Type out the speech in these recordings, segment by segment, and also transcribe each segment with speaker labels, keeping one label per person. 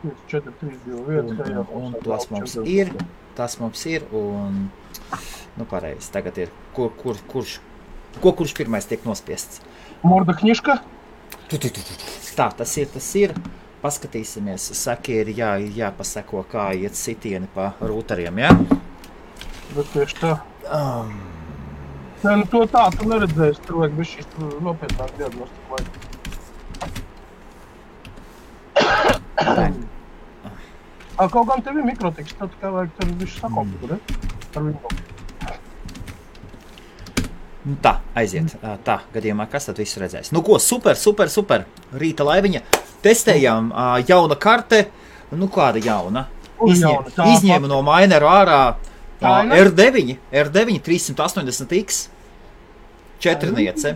Speaker 1: 4, 3, 2, 1.
Speaker 2: Un tas mums ir, un, nu pareizi, tagad ir, kurš pirmais tiek nospiests?
Speaker 1: Morda kniška?
Speaker 2: Tā, tas ir. Paskatīsimies, saki ir jāpaseko, kā iet sitieni pa rūtariem, jā?
Speaker 1: Bet tieši tā. Nē, nu to tā, tu neredzēsi, tur vajag bez šīs nopietnāk diagnostiku vajag. Kaut gan tev ir mikrotiks, tad kā vajag tev visu sakomptu, ne? Ar viņu.
Speaker 2: Tā, aiziet. Tā, gadījumā, kas tad visu redzēs? Nu ko, super. Rīta laiviņa. Testējām jauna karte. Nu kāda jauna? Izņēma no maineru ārā R9 380X. 4niece.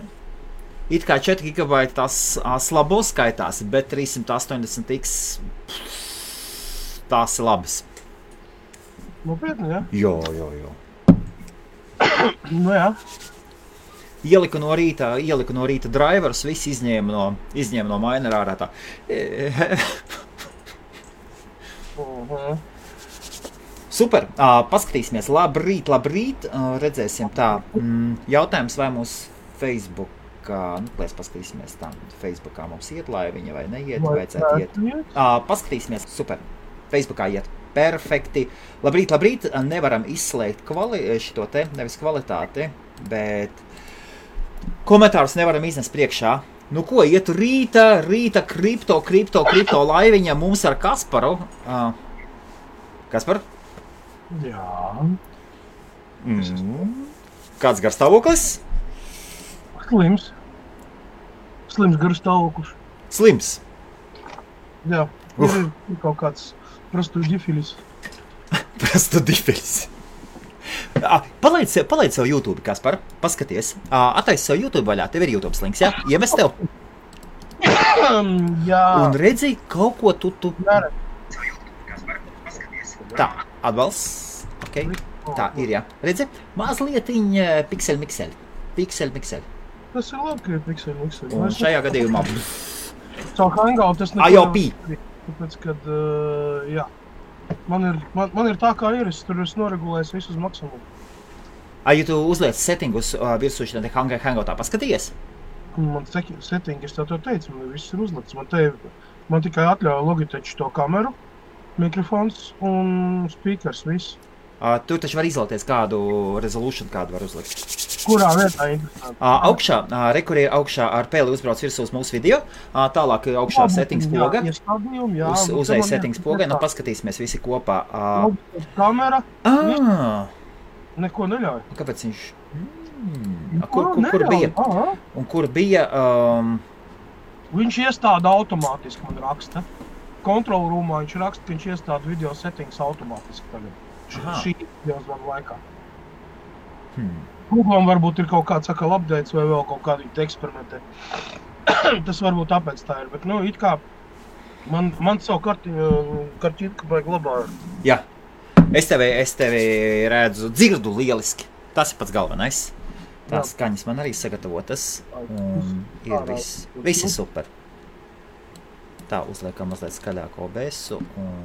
Speaker 2: It kā 4 GB tās slabo skaitās, bet 380X tās ir labas.
Speaker 1: Nopietni, jā?
Speaker 2: Jo.
Speaker 1: Nu jā.
Speaker 2: Ieliku no rīta driverus, viss izņēma no mainera ārā tā. Super, paskatīsimies, labrīt, redzēsim tā. Jautājums, vai mūsu Facebookā, mēs paskatīsimies tā, Facebookā mums iet laiviņa vai neiet, vajadzētu iet. Paskatīsimies, super, Facebookā iet. Perfekti. Labrīt, nevaram izslēgt šito te, nevis kvalitāti, bet komentārus nevaram iznest priekšā. Nu ko, iet rīta kripto laiviņa mums ar Kasparu. Kaspar?
Speaker 1: Jā.
Speaker 2: Kāds garstāvoklis?
Speaker 1: Slims garstāvoklis.
Speaker 2: Slims?
Speaker 1: Jā, ir kaut kāds prostudifilis. Palaid sev YouTube, Kaspar, paskaties. Attaisi sev YouTube vaļā, tev ir YouTube links, jā? Iemest tev? Jā.
Speaker 2: Un redzi, kaut ko tu...
Speaker 1: Nere.
Speaker 2: Tā, atbalsts. Ok, tā ir, jā. Redzi, mazlietiņ pikseli.
Speaker 1: Tas ir labi, ka ir pikseli.
Speaker 2: Un šajā gadījumā...
Speaker 1: Caur Hangout tas neko...
Speaker 2: IOP.
Speaker 1: Tāpēc, kad, jā. Man ir tā, kā ir, es tur esmu noregulējis visu uz maksimumu.
Speaker 2: Ja tu uzliec settingus virsū šitā Hangoutā, paskaties?
Speaker 1: Man settingi, es tev teicu, man viss ir uzlikts. Man tikai atļauja Logitech to kameru, mikrofons un speakers, viss.
Speaker 2: Tur taču var izvēlēties kādu resolution, kādu var uzlikt.
Speaker 1: Kurā vietā interesanti?
Speaker 2: Augšā, kur ir augšā ar pēli uzbrauc virsū uz mūsu video, tālāk augšā settings poga, uzēja settings poga, nu paskatīsimies visi kopā.
Speaker 1: Kamera, neko neļauj.
Speaker 2: Kāpēc viņš? Kur bija? Un kur bija?
Speaker 1: Viņš iestāda automātiski, man raksta. Kontrol rūmā viņš raksta, ka viņš iestāda video settings automātiski tagad. Šī videos man laikā. Google varbūt ir kaut kāds sakal updates vai vēl kaut kādu eksperimentē. Tas varbūt tāpēc tā ir, bet nu it kā man savu kartītku vajag labāk.
Speaker 2: Jā, es tevi redzu, dzirdu lieliski. Tas ir pats galvenais. Tās skaņas man arī sagatavotas un ir visi super. Tā, uzliekam mazliet skaļāko OBS-u un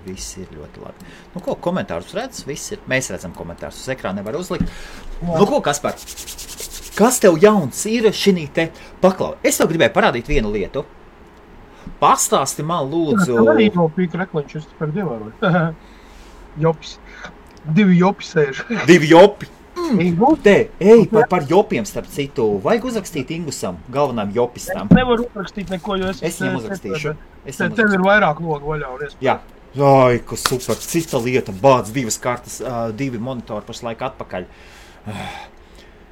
Speaker 2: viss ir ļoti labi. Nu ko, komentārus redz? Viss ir. Mēs redzam komentārus. Uz ekrāna nevar uzlikt. Nu ko, Kaspar? Kas tev jauns ir šinī te paklau? Es tev gribēju parādīt vienu lietu. Pastāsti man lūdzu...
Speaker 1: Tev arī nav pīka reklanču, es par ievēroju. Jopis. 2 jopi sēž.
Speaker 2: 2 jopi. Par jopiem starp citu. Vajag uzrakstīt Ingusam, galvenām jopistam.
Speaker 1: Es nevaru uzrakstīt neko, jo es
Speaker 2: viņam uzrakstīšu.
Speaker 1: Tev ir vairāk logu vaļā un iespēja.
Speaker 2: Jā. Ai, kas super. Cita lieta. Bāc 2 kartas, 2 monitori pašlaik atpakaļ.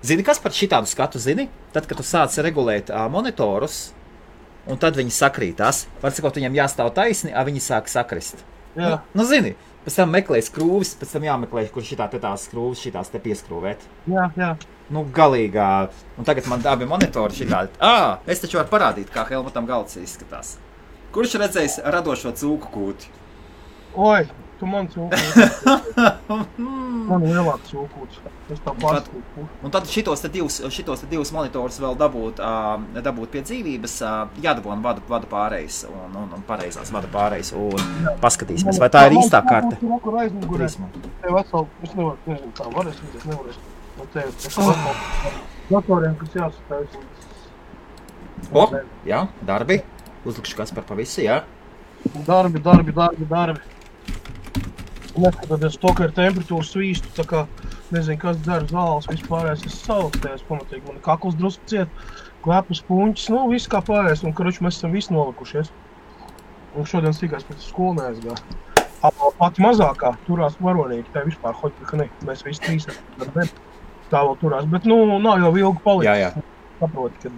Speaker 2: Zini, kas par šitādu skatu zini? Tad, kad tu sāc regulēt monitorus, un tad viņi sakrītās. Var sakot, viņam jāstāv taisni, viņi sāk sakrist.
Speaker 1: Jā.
Speaker 2: Nu, zini. Pēc tam meklē skrūvis, pēc tam jāmeklē, kur tās skrūvis šitās te pieskrūvēt.
Speaker 1: Jā.
Speaker 2: Nu, galīgā. Un tagad man abi monitori šitādi. Es taču varu parādīt, kā Helmutam galds izskatās. Kurš redzējis radošo cūku kūti?
Speaker 1: Oi, Tu man cūkūts. Man lielāks cūkūts. Es tā pārskūtu.
Speaker 2: Un tad šitos te divus monitorus vēl dabūt pie dzīvības, jādabon vadu pārējais un pareizās vadu pārējais. Un paskatīsimies, vai tā ir īstā karte.
Speaker 1: Tur aizmugurē. Tev atsal, es nezinu, kā varēs, es nevarēšu. Un tev atsal datoriem, kas jāsastājas.
Speaker 2: O, jā, darbi. Uzlikšu Kaspar pa visu, jā.
Speaker 1: Darbi. Neskatoties to, ka ir temperatūra svīstu, tā kā, nezinu, kas dzer zāles, vispārējais es saukstējos pamatīgi. Man kakls drusku ciet, klepus puņķis, nu, viss kā pārējais, un, karuči, mēs esam visi nolikušies. Un šodien sīkās pēc skolu neaizgā. Pati mazākā turās varonīgi, tā vispār hoķi, ka ne, mēs visi trīs tā vēl turās, bet, nu, nav jau ilgi palicis.
Speaker 2: Jā.
Speaker 1: Saproti, kad,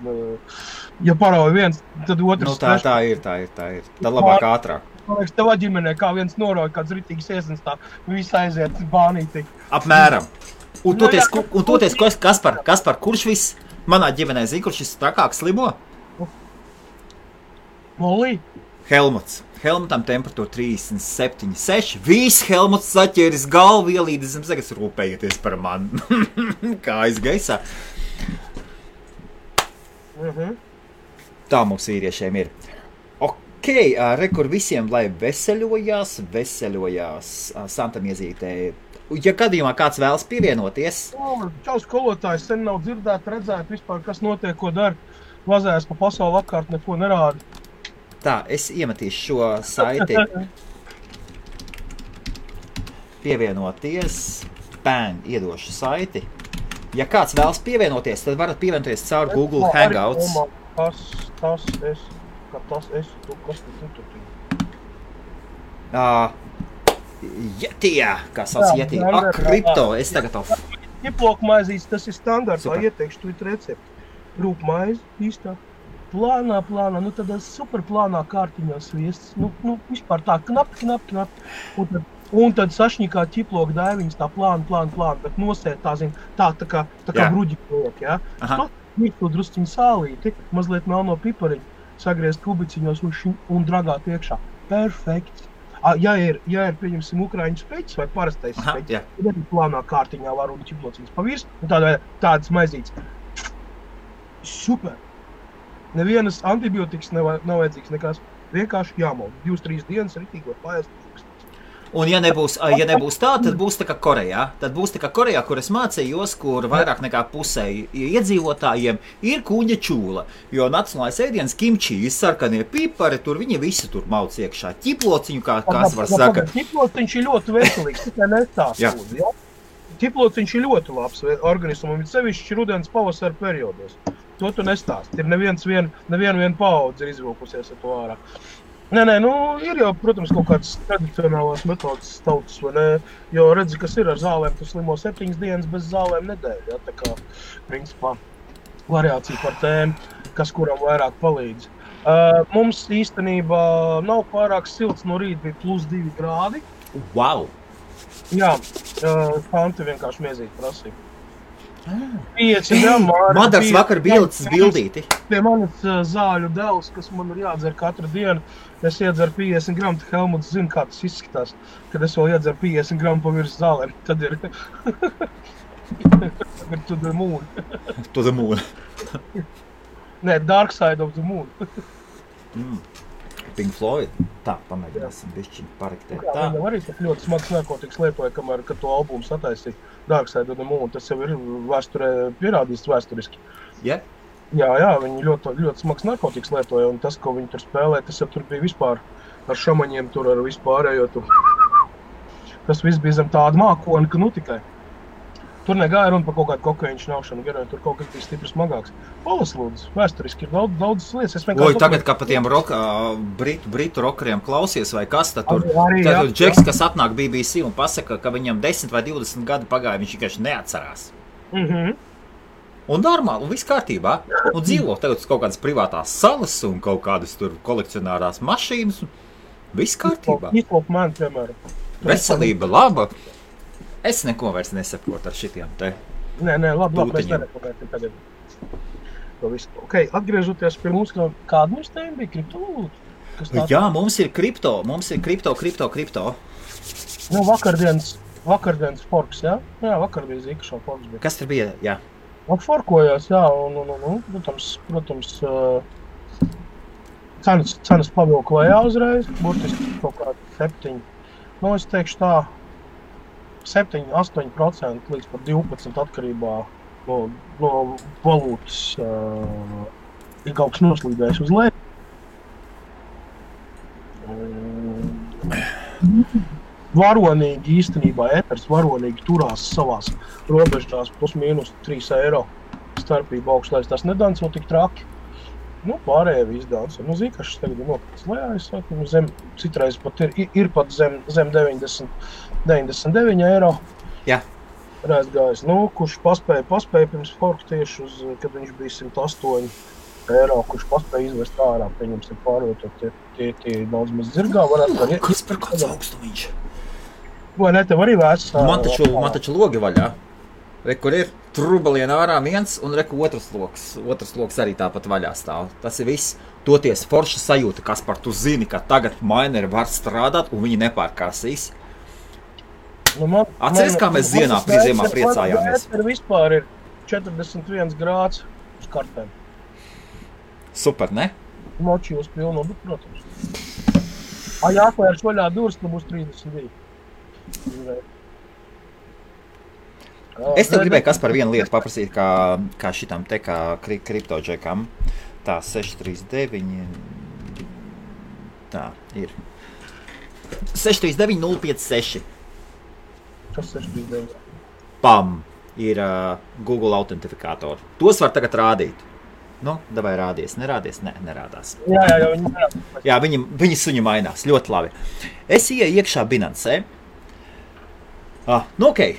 Speaker 1: ja parauja viens, tad otrs...
Speaker 2: Nu, tā ir. Tad labāk ātrāk.
Speaker 1: Man liekas, tevā ģimenē, kā viens norauja kāds ritīgs iesens, tā viss aiziet bānītī.
Speaker 2: Apmēram. Un toties, Kaspar, kurš viss manā ģimenē zina, kurš šis trakāks slimo?
Speaker 1: Molī?
Speaker 2: Helmutam temperatūra 37,6. Viss Helmuts saķēris galvu ielīdis zem zemes, rūpējieties par mani. Kā aizgaisā. Tā mums vīriešiem ir. Ok, rekur visiem, lai veseļojās Santa Miezītē. Ja gadījumā kāds vēlas pievienoties?
Speaker 1: Čau, skolotājs, sen nav redzēt vispār, kas notiek, ko dara. Vazējas pa pasauli apkārt, neko nerāda.
Speaker 2: Tā, es iemetīšu šo saiti. Pievienoties. Bang, iedošu saiti. Ja kāds vēlas pievienoties, tad varat pievienoties caur Google Hangouts.
Speaker 1: Tas es.
Speaker 2: Jetija, kā sauc Jetija. Kripto, es tagad to...
Speaker 1: Ķiplokmaizīs, tas ir standartā, ieteikšu tu recepti. Rūpmaizi, īstā. Plānā, nu tādā superplānā kārtiņā sviests. Nu, vispār tā, knapi. Un tad sašņikā ķiploka daiviņas tā plāna, bet nosēt tā kā bruģi kliek, jā. Mirkli drusciņu sālīti, mazliet melno pipariņu, sagriezt kubiciņos un dragāt iekšā. Perfekts. Ja ir, pieņemsim, ukraiņu speķis vai parastais speķis, tad arī plānā kārtiņā var un ķiplociņas pavirs, un tādas maizītes. Super. Nevienas antibiotikas nav vajadzīgs nekās. Vienkārši jāmalda. 2-3 dienas ritīgi var paēst.
Speaker 2: Un ja nebūs tā, tad būs tā kā Korejā. Tad būs tā kā Korejā, kur es mācījos, kur vairāk nekā pusē iedzīvotājiem ir kuņa čūla. Jo nacionālais ēdiens kimči, sarkanie pipari, tur viņi visi tur mauc iekšā. Ķiplociņu, kā var saka.
Speaker 1: Ķiplociņš ir ļoti veselīgs, tikai nestāst. Ja? Ķiplociņš ir ļoti labs organismam, ir sevišķi rudens pavasara periodos. To tu nestāst. Ir neviena paudze ir izvilkusies ar to ārā. Nē, ir jau, protams, kaut kādas tradicionālās metodas tautas, vai ne? Jo redzi, kas ir ar zālēm, tu slimo 7 dienas bez zālēm nedēļ, ja? Tā kā, principā, variācija par tēmu, kas kuram vairāk palīdz. Mums īstenībā nav pārāk silts, no rīta bija +2 grādi.
Speaker 2: Wow!
Speaker 1: Jā, Fanti vienkārši miezīt prasīja.
Speaker 2: Madars vakar bija licis bildīti.
Speaker 1: Pie manis zāļu devs, kas man ir jādzer katru dienu, es iedzeru 50 gramu, Helmuts zina, kā tas izskatās, kad es vēl iedzeru 50 gramu pa virs zālēm, tad ir to the moon.
Speaker 2: To the moon.
Speaker 1: Nē, dark side of the moon.
Speaker 2: Pink Floyd. Tā, pamēģināsim bišķiņu parektēt. Tā.
Speaker 1: Viņam arī ļoti smags narkotikas lietoja, kamēr, kad to albumu sataisīja Dark Side of the Moon. Tas jau ir vēsturē pierādīts vēsturiski.
Speaker 2: Yeah.
Speaker 1: Jā, viņi ļoti smags narkotikas lietoja, un tas, ko viņi tur spēlē, tas jau tur bija vispār ar šamaņiem, tur ar vispārējo tur. Tas viss bija zem tāda mākona, ka nu tikai. Tur negāja runa par kaut kādu kokaīnu šņaušanu, garīgi tur kaut kas bija stipri smagāks. Palas lūdzu, vēsturiski ir daudz lietas.
Speaker 2: Tagad, kā pa tiem britu rokeriem klausies vai kas, tad tur Džeks, kas atnāk BBC un pasaka, ka viņam 10 vai 20 gadi pagāja, viņš vienkārši neatcerās. Un normāli, un viss kārtībā. Un dzīvo tagad kaut kādas privātās salas un kaut kādas tur kolekcionārās mašīnas. Viss kārtībā.
Speaker 1: Izlop man, piemēram.
Speaker 2: Veselība laba. Es neko vairs nesaprotu ar šitiem te.
Speaker 1: Nē, labi, mēs nerekomendēsim tagad. To visu. Ok, atgriežoties pie mums, kāda mums tēma bija? Kriptovalūta?
Speaker 2: Jā, mums ir kripto.
Speaker 1: Nu, vakardienas forks, jā? Jā, vakar bija zīkašā forks. Bija.
Speaker 2: Kas tur bija? Jā.
Speaker 1: Forkojās, jā, un protams, cenas pavilka lejā uzreiz, burtiski kaut kādi 7. Nu, es teikšu tā, 7-8% līdz pat 12% atkarībā no valūtas ir kaut kas noslīdējis uz leju. Varonīgi īstenībā eters varonīgi turās savās robežās plus mīnus 3 eiro starpība augšlēs. Tas nedanco tik traki. Nu, pārējie viss danco. Nu, zīkašas tagad ir nokritis lejā, es saku, citreiz pat ir pat zem 99 eiro.
Speaker 2: Jā.
Speaker 1: Rēzgājis. Nu, kurš paspēja pirms forka tieši kad viņš bija 108 eiro, kurš paspēja izvest ārā, pieņemsim pārvietot tie daudz maz zirgā.
Speaker 2: Kas par kāds augstumiņš?
Speaker 1: Vai ne, tev arī vēsts?
Speaker 2: Man taču logi vaļā. Kur ir trubaliena ārā viens un otrs loks arī tāpat vaļā stāv. Tas ir viss. Toties forša sajūta, Kaspar, tu zini, ka tagad maineri var strādāt un viņi nepārkāsīs. Atceries, kā mēs ziemā priecājāmies?
Speaker 1: Man vispār ir 41 grāds uz kartēm.
Speaker 2: Super, ne?
Speaker 1: Moči uz pilnu, bet, protams. Jāklērs vaļā durvis, tad būs 32.
Speaker 2: Es tev gribēju, Kaspar, vienu lietu paprasīt, kā šitam te, kā kriptoģekam. Tā, 639. Tā, ir. 639 056.
Speaker 1: Kas 639?
Speaker 2: Pam! Ir Google autentifikātori. Tos var tagad rādīt. Nu, davai rādies. Nerādies? Nē, nerādās.
Speaker 1: Jā, viņi nerādās.
Speaker 2: Jā, viņi suņi mainās. Ļoti labi. Es ieju iekšā Binancē. Nu, okei.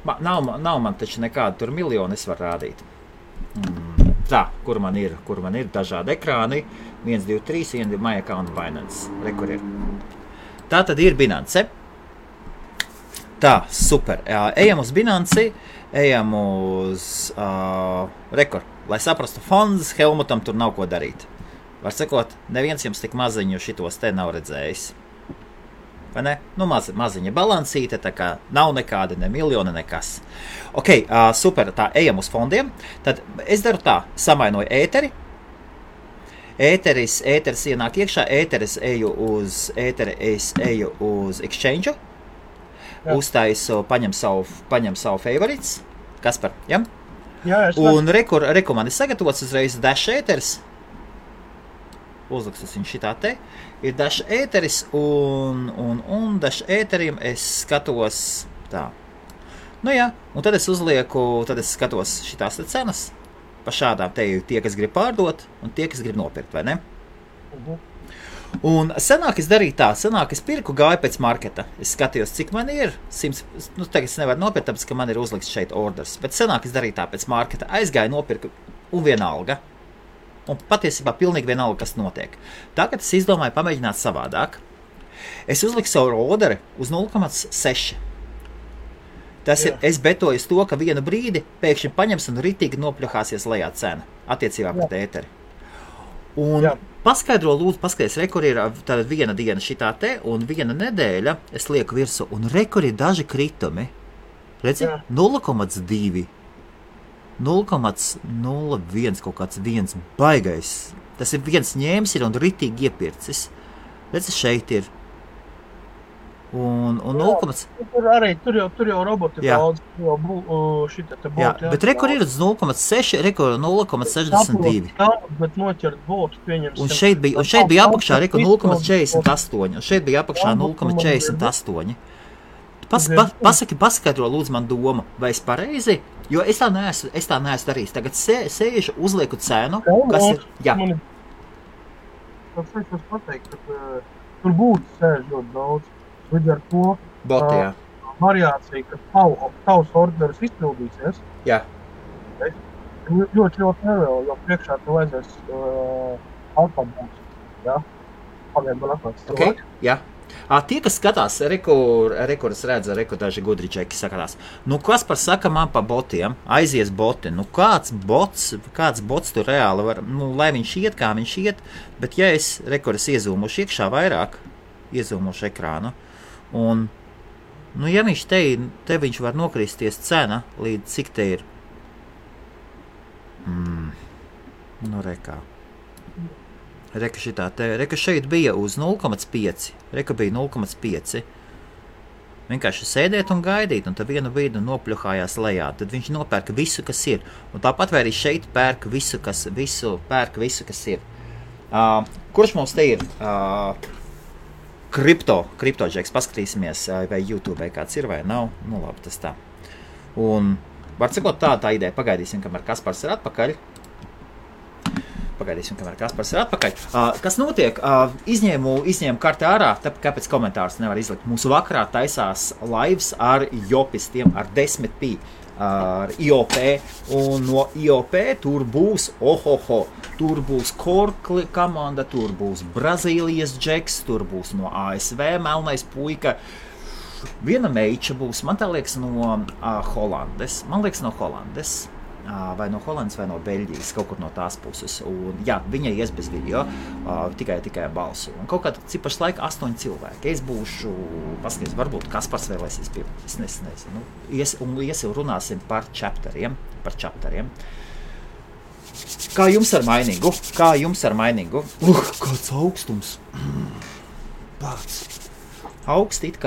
Speaker 2: Nav man taču nekāda tur miljoni, es varu rādīt. Tā, kur man ir dažādi ekrāni. 1, 2, 3, 1, 2, My Account Binance. Kur ir. Tā tad ir Binance. Tā, super. Ejam uz Binanci, ejam uz lai saprastu fonds, Helmutam tur nav ko darīt. Var sakot, neviens jums tik maziņu šitos te nav redzējis. Vai ne? Nu, maziņa balansīte, tā kā nav nekāda, ne miljona, nekas. Ok, super, tā, ejam uz fondiem. Tad es daru tā, samainoju ēteri. Ēteris ienāk iekšā, es eju uz exchange. Uztaisu, paņem savu favorites. Kaspar, ja?
Speaker 1: Jā,
Speaker 2: un reku man ir sagatavots uzreiz dash ēteris. Uzliks viņš šitā te. Ir dash ēteris un dash ēterim es skatos tā. Nu jā, un tad es skatos šitās te cenas. Pa šādām te ir tie, kas grib pārdot un tie, kas grib nopirkt, vai ne? Un senāk es darīju tā, es pirku, gāju pēc marketa. Es skatījos, cik man ir 100, nu tagad es nevaru nopirkt, tāpēc, ka man ir uzlikts šeit orders. Bet senāk es darīju tā pēc marketa, aizgāju, nopirku un vienalga. Un patiesībā pilnīgi vienalga, kas notiek. Tagad es izdomāju pamēģināt savādāk. Es uzliku savu orderi uz 0,6. Tas ir, es betoju uz to, ka vienu brīdi pēkšņi paņems un ritīgi nopļuhāsies lejā cena attiecībā pret ēteri. Un paskaidro, lūdzu, paskaties, rekur ir tāda viena diena šitā te, un viena nedēļa es lieku virsu, un rekur ir daži kritumi. Redzi? 0,2, 0,01, kaut kāds viens baigais. Tas ir viens ņēmis ir un ritīgi iepircis. Redzi, šeit ir. Un 0,
Speaker 1: tur jau roboti daudz, šita te būtu.
Speaker 2: Jā, bet rekur ir uz 0,6, rekur 0,62.
Speaker 1: Bet noķert būtu, pieņemsim.
Speaker 2: Un šeit bija apakšā rekur 0,48, un šeit bija apakšā 0,48. Paskaidro, lūdzu, man domu, vai es pareizi, jo es tā neesmu darījis. Tagad sēžu, uzlieku cenu, kas ir, jā.
Speaker 1: Tas pateikt, ka tur būtu sēž ļoti daudz. Līdz ar to variācija, ka tavs orderis izpildīsies.
Speaker 2: Jā.
Speaker 1: Ļoti nevēlu, jo priekšā tev aizies alfabūts. Jā. Pagaid man atnāc.
Speaker 2: Okay. Jā. Tie, kas skatās, rekur es redzu, daži gudričeki sakatās. Nu, kas par saka man pa botiem? Aizies boti. Nu, kāds bots tur reāli var, nu, lai viņš iet, kā viņš iet, bet ja es iezūmuši iekšā vairāk, iezūmuši ekrānu, Un, nu, ja viņš te viņš var nokristies cena, līdz cik te ir? Nu, rekā. Reka šitā te, reka šeit bija uz 0,5. Reka bija 0,5. Vienkārši sēdēt un gaidīt, un tad vienu brīdi nopļuhājās lejā. Tad viņš nopērka visu, kas ir. Un tāpat vai arī šeit pērk visu, kas ir. Kurš mums te ir? Kriptožeks, paskatīsimies, vai YouTube kāds ir vai nav. Nu labi, tas tā. Un var sakot tā ideja, pagaidīsim, kamēr Kaspars ir atpakaļ. Kas notiek? Izņēmu karti ārā, kāpēc komentārus nevar izlikt. Mūsu vakarā taisās lives ar jopistiem, ar 10p, ar IOP. Un no IOP tur būs, tur būs Korkli komanda, tur būs Brazīlijas džeks, tur būs no ASV melnais puika. Viena meiča būs, man tā liekas, no Holandes. Vai no Holandas, vai no Beļģijas, kaut kur no tās puses. Un, jā, viņa ies bez video, tikai balsu. Un kaut kādā cipašs laika 8 cilvēki. Es būšu, paskaties, varbūt Kaspars vēlēsies pie, es nezinu. Iesim runāsim par chapteriem. Kā jums ar mainīgu? Kāds augstums. Pats. Augsti it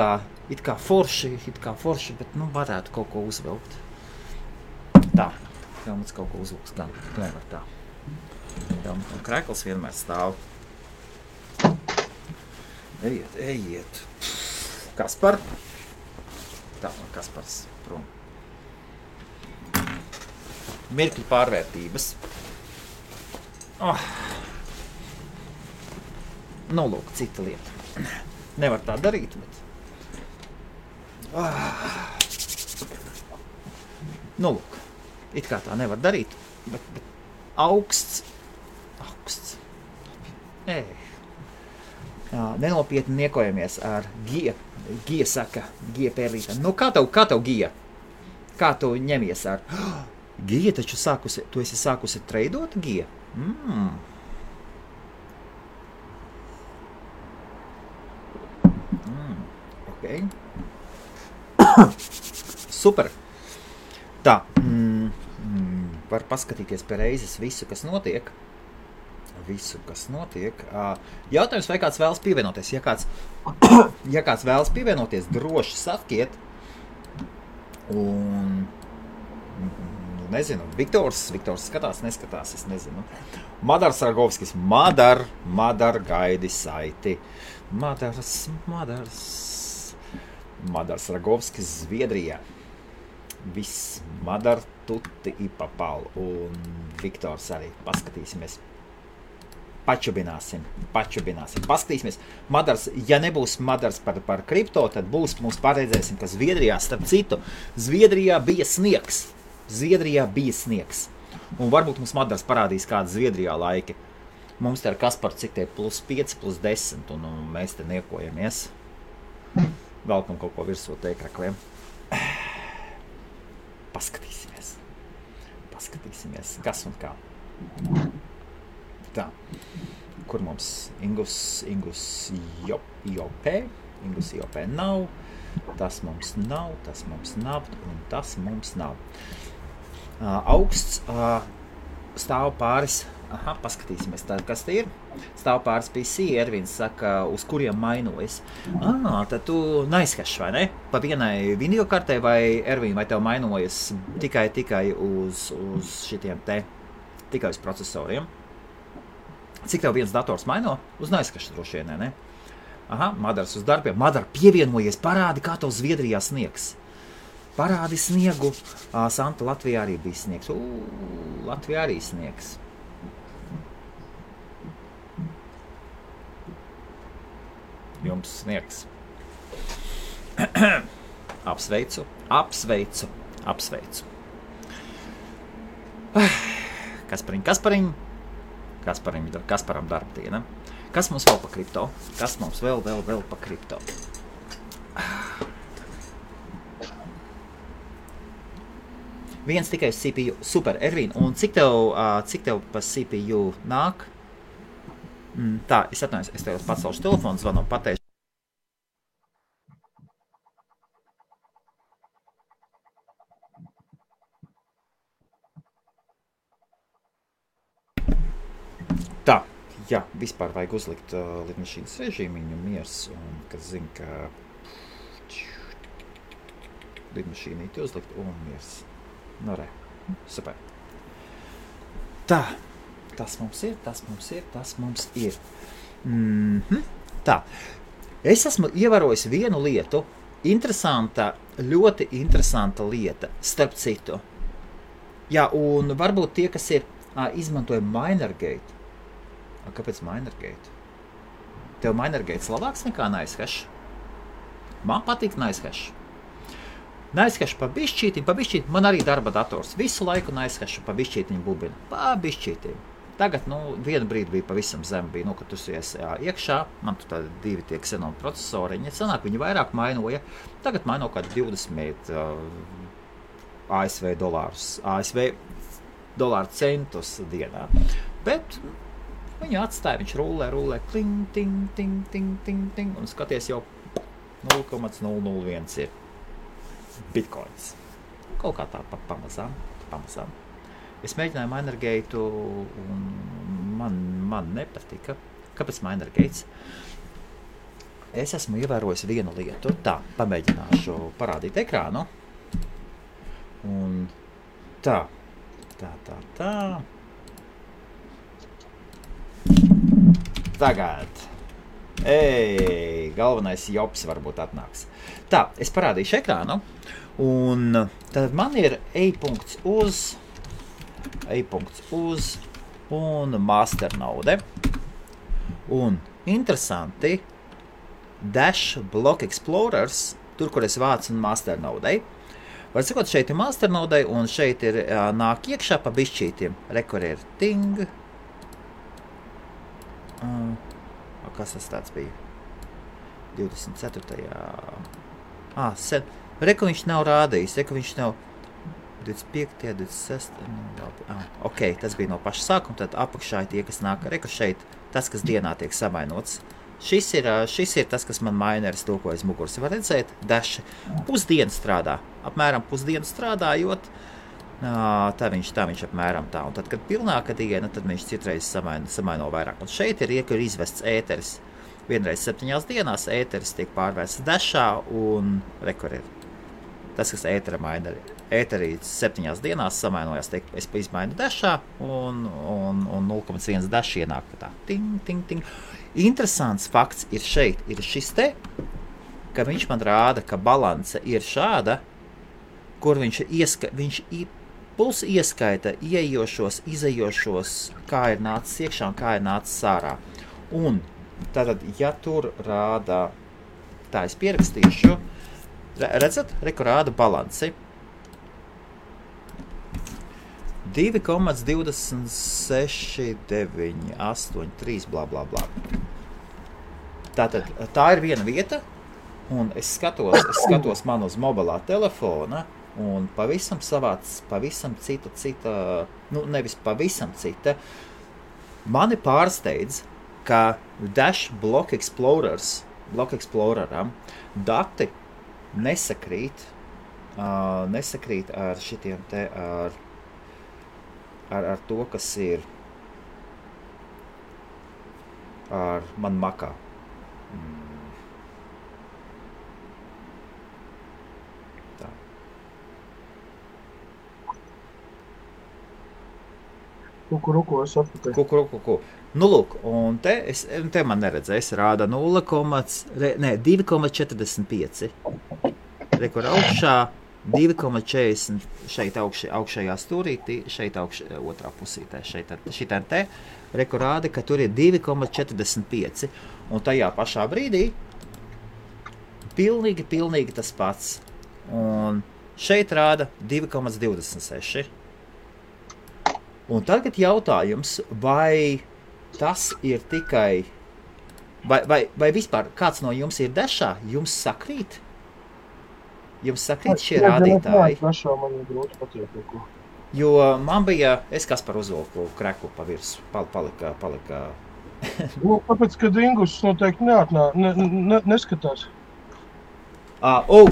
Speaker 2: kā forši, bet, nu, varētu kaut ko uzvilkt. Tā. Helmuts kaut ko uzlūks, gan nevar tā. Helmuts un krekls vienmēr stāv. Ejiet. Kaspar. Tā, man Kaspars prom. Mirkļu pārvērtības. Nu, lūk, cita lieta. Nevar tā darīt, bet... Nu, lūk. It kā tā nevar darīt, bet augsts. Nenopietni niekojamies ar Gija saka, Gija pērlītā. Nu, kā tev Gija? Kā tu ņemies ar? Gija taču tu esi sākusi treidot, Gija? Ok. Super. Tā. Var paskatīties pie reizes visu, kas notiek. Jautājums, vai kāds vēlas pievienoties? Ja kāds vēlas pievienoties, droši sakiet. Un, nezinu, Viktors skatās, neskatās, es nezinu. Madars Ragovskis, Madar gaidi saiti. Madars Ragovskis, Zviedrijā. Viss, Madar tutti i papal, un Viktors arī, paskatīsimies. Pačubināsim. Paskatīsimies. Madars, ja nebūs Madars par kripto, tad būs, mums paredzēsim, ka Zviedrijā, starp citu, Zviedrijā bija sniegs. Un varbūt mums Madars parādīs kādu Zviedrijā laiki. Mums te ar Kasparu cik tie +5, +10, un mēs te niekojamies. Velkam kaut ko virsot teikrakliem. Paskatīsimies, kas un kā. Tā, kur mums Ingus IOP nav, tas mums nav, un tas mums nav. Augsts stāv pāris, paskatīsimies tā, kas te ir. Stāv pāris PC, Ervins saka, uz kuriem mainojas. Tad tu neizskašs, vai ne? Pa vienai video kartē vai, Ervin, vai tev mainojas tikai uz šitiem te, tikai uz procesoriem? Cik tev viens dators maino? Uz neizskašs droši vien, ne? Madars uz darbiem. Madar, pievienojies, parādi, kā tev Zviedrijā sniegs. Parādi sniegu. Santa, Latvijā arī bija sniegs. Latvijā arī sniegs. Jums sniegs. Apsveicu. Kasparam darbdiena. Kas mums vēl pa kripto? Kas mums vēl pa kripto? Viens tikai CPU. Super, Ervin. Un cik tev pa CPU nāk? Tā, es atvainojos, es tev pacelšu telefonu, zvanu, pateikšu. jā, vispār vajag uzlikt lidmašīnas režīmiņu miers, un, kad zinu, ka lidmašīnīti uzlikt un miers. Nu, re, super. Tā, tas mums ir. Tā, es esmu ievērojis vienu lietu, ļoti interesanta lieta, starp citu. Jā, un varbūt tie, kas ir izmantoja Minergate. Kāpēc Minergate? Tev Minergate labāks nekā NiceHash? Man patīk NiceHash. NiceHash pa bišķītim. Man arī darba dators. Visu laiku NiceHash pa bišķītiņu bubina. Pa bišķītim. Tagad, vienu brīdi bija pavisam zem, bija, kad tu esi iekšā, man tu tādi 2 tie Xenon procesoriņi, sanāk, viņi vairāk mainoja, tagad maino kādu 20 ASV dolāru centus dienā, bet viņu atstāja, viņš rulē, kling, ting, un skaties jau 0,001 ir bitcoins. Kaut kā tā pamazām. Es mēģināju Minergate, un man nepatika. Kāpēc Minergate? Es esmu ievērojis vienu lietu. Tā, pamēģināšu parādīt ekrānu. Un tā. Tagad. Galvenais jops varbūt atnāks. Tā, es parādīšu ekrānu. Un tad man ir e-punkts uz un masternode. Un interesanti, Dash Block Explorers, tur, kur es vācu un masternodei. Var sakot, šeit ir masternodei, un šeit ir nāk iekšā pa bišķītiem. Rekur ir ting. Kas tas tāds bija? 24. Reku viņš nav rādījis, viņš nav 25. 26. Ok, tas bija no paša sākuma, tad apakšā ir tie, kas nāk. Reku šeit, tas, kas dienā tiek samainots. Šis ir tas, kas man mineris to, ko aiz muguras var redzēt. Dash pusdienu strādā. Apmēram pusdienu strādājot, tā viņš apmēram tā. Un tad, kad pilnāka diena, tad viņš citreiz samaino vairāk. Un šeit ir izvests ēteris. Vienreiz 7 dienās ēteris tiek pārvērsts Dashā un rekur ir. Tas, kas ētera mineri. Ēterī 7 dienās samainojās, es izmainu Dashā un 0,1 Dash ienāk tā. Ting. Interesants fakts ir šeit, ir šis te, ka viņš man rāda, ka balance ir šāda, kur viņš puls ieskaita ieejošos, izejošos, kā ir nācis iekšā un kā ir nācis ārā. Un tātad, ja tur rāda, tā es pierakstīšu, redzat, reku rāda balanci. 2,2698,3 blā. Tātad, tā ir viena vieta, un es skatos man uz mobilā telefona, un pavisam cita, nevis pavisam cita, mani pārsteidz, ka Dash Block Exploreram dati nesakrīt ar šitiem te, ar to, kas ir ar man makā. Tā.
Speaker 1: Kukuruku, es atpakaļ.
Speaker 2: Kukuruku. Nu, lūk, un te man neredzēs, rāda 2,45. Rekur augšā 2,40 šeit augšējā stūrītī, šeit otrā pusītē, šitā te, rekur rāda, ka tur ir 2,45, un tajā pašā brīdī pilnīgi tas pats, un šeit rāda 2,26. Un tagad jautājums, vai tas ir tikai, vai vispār kāds no jums ir Dashā, jums sakrīt? Jums sakrīt šie rādītāji? Jo man bija, es Kaspar uzvilku kreku pa virsu, palika.
Speaker 1: Kāpēc, kad Ingus noteikti neskatās?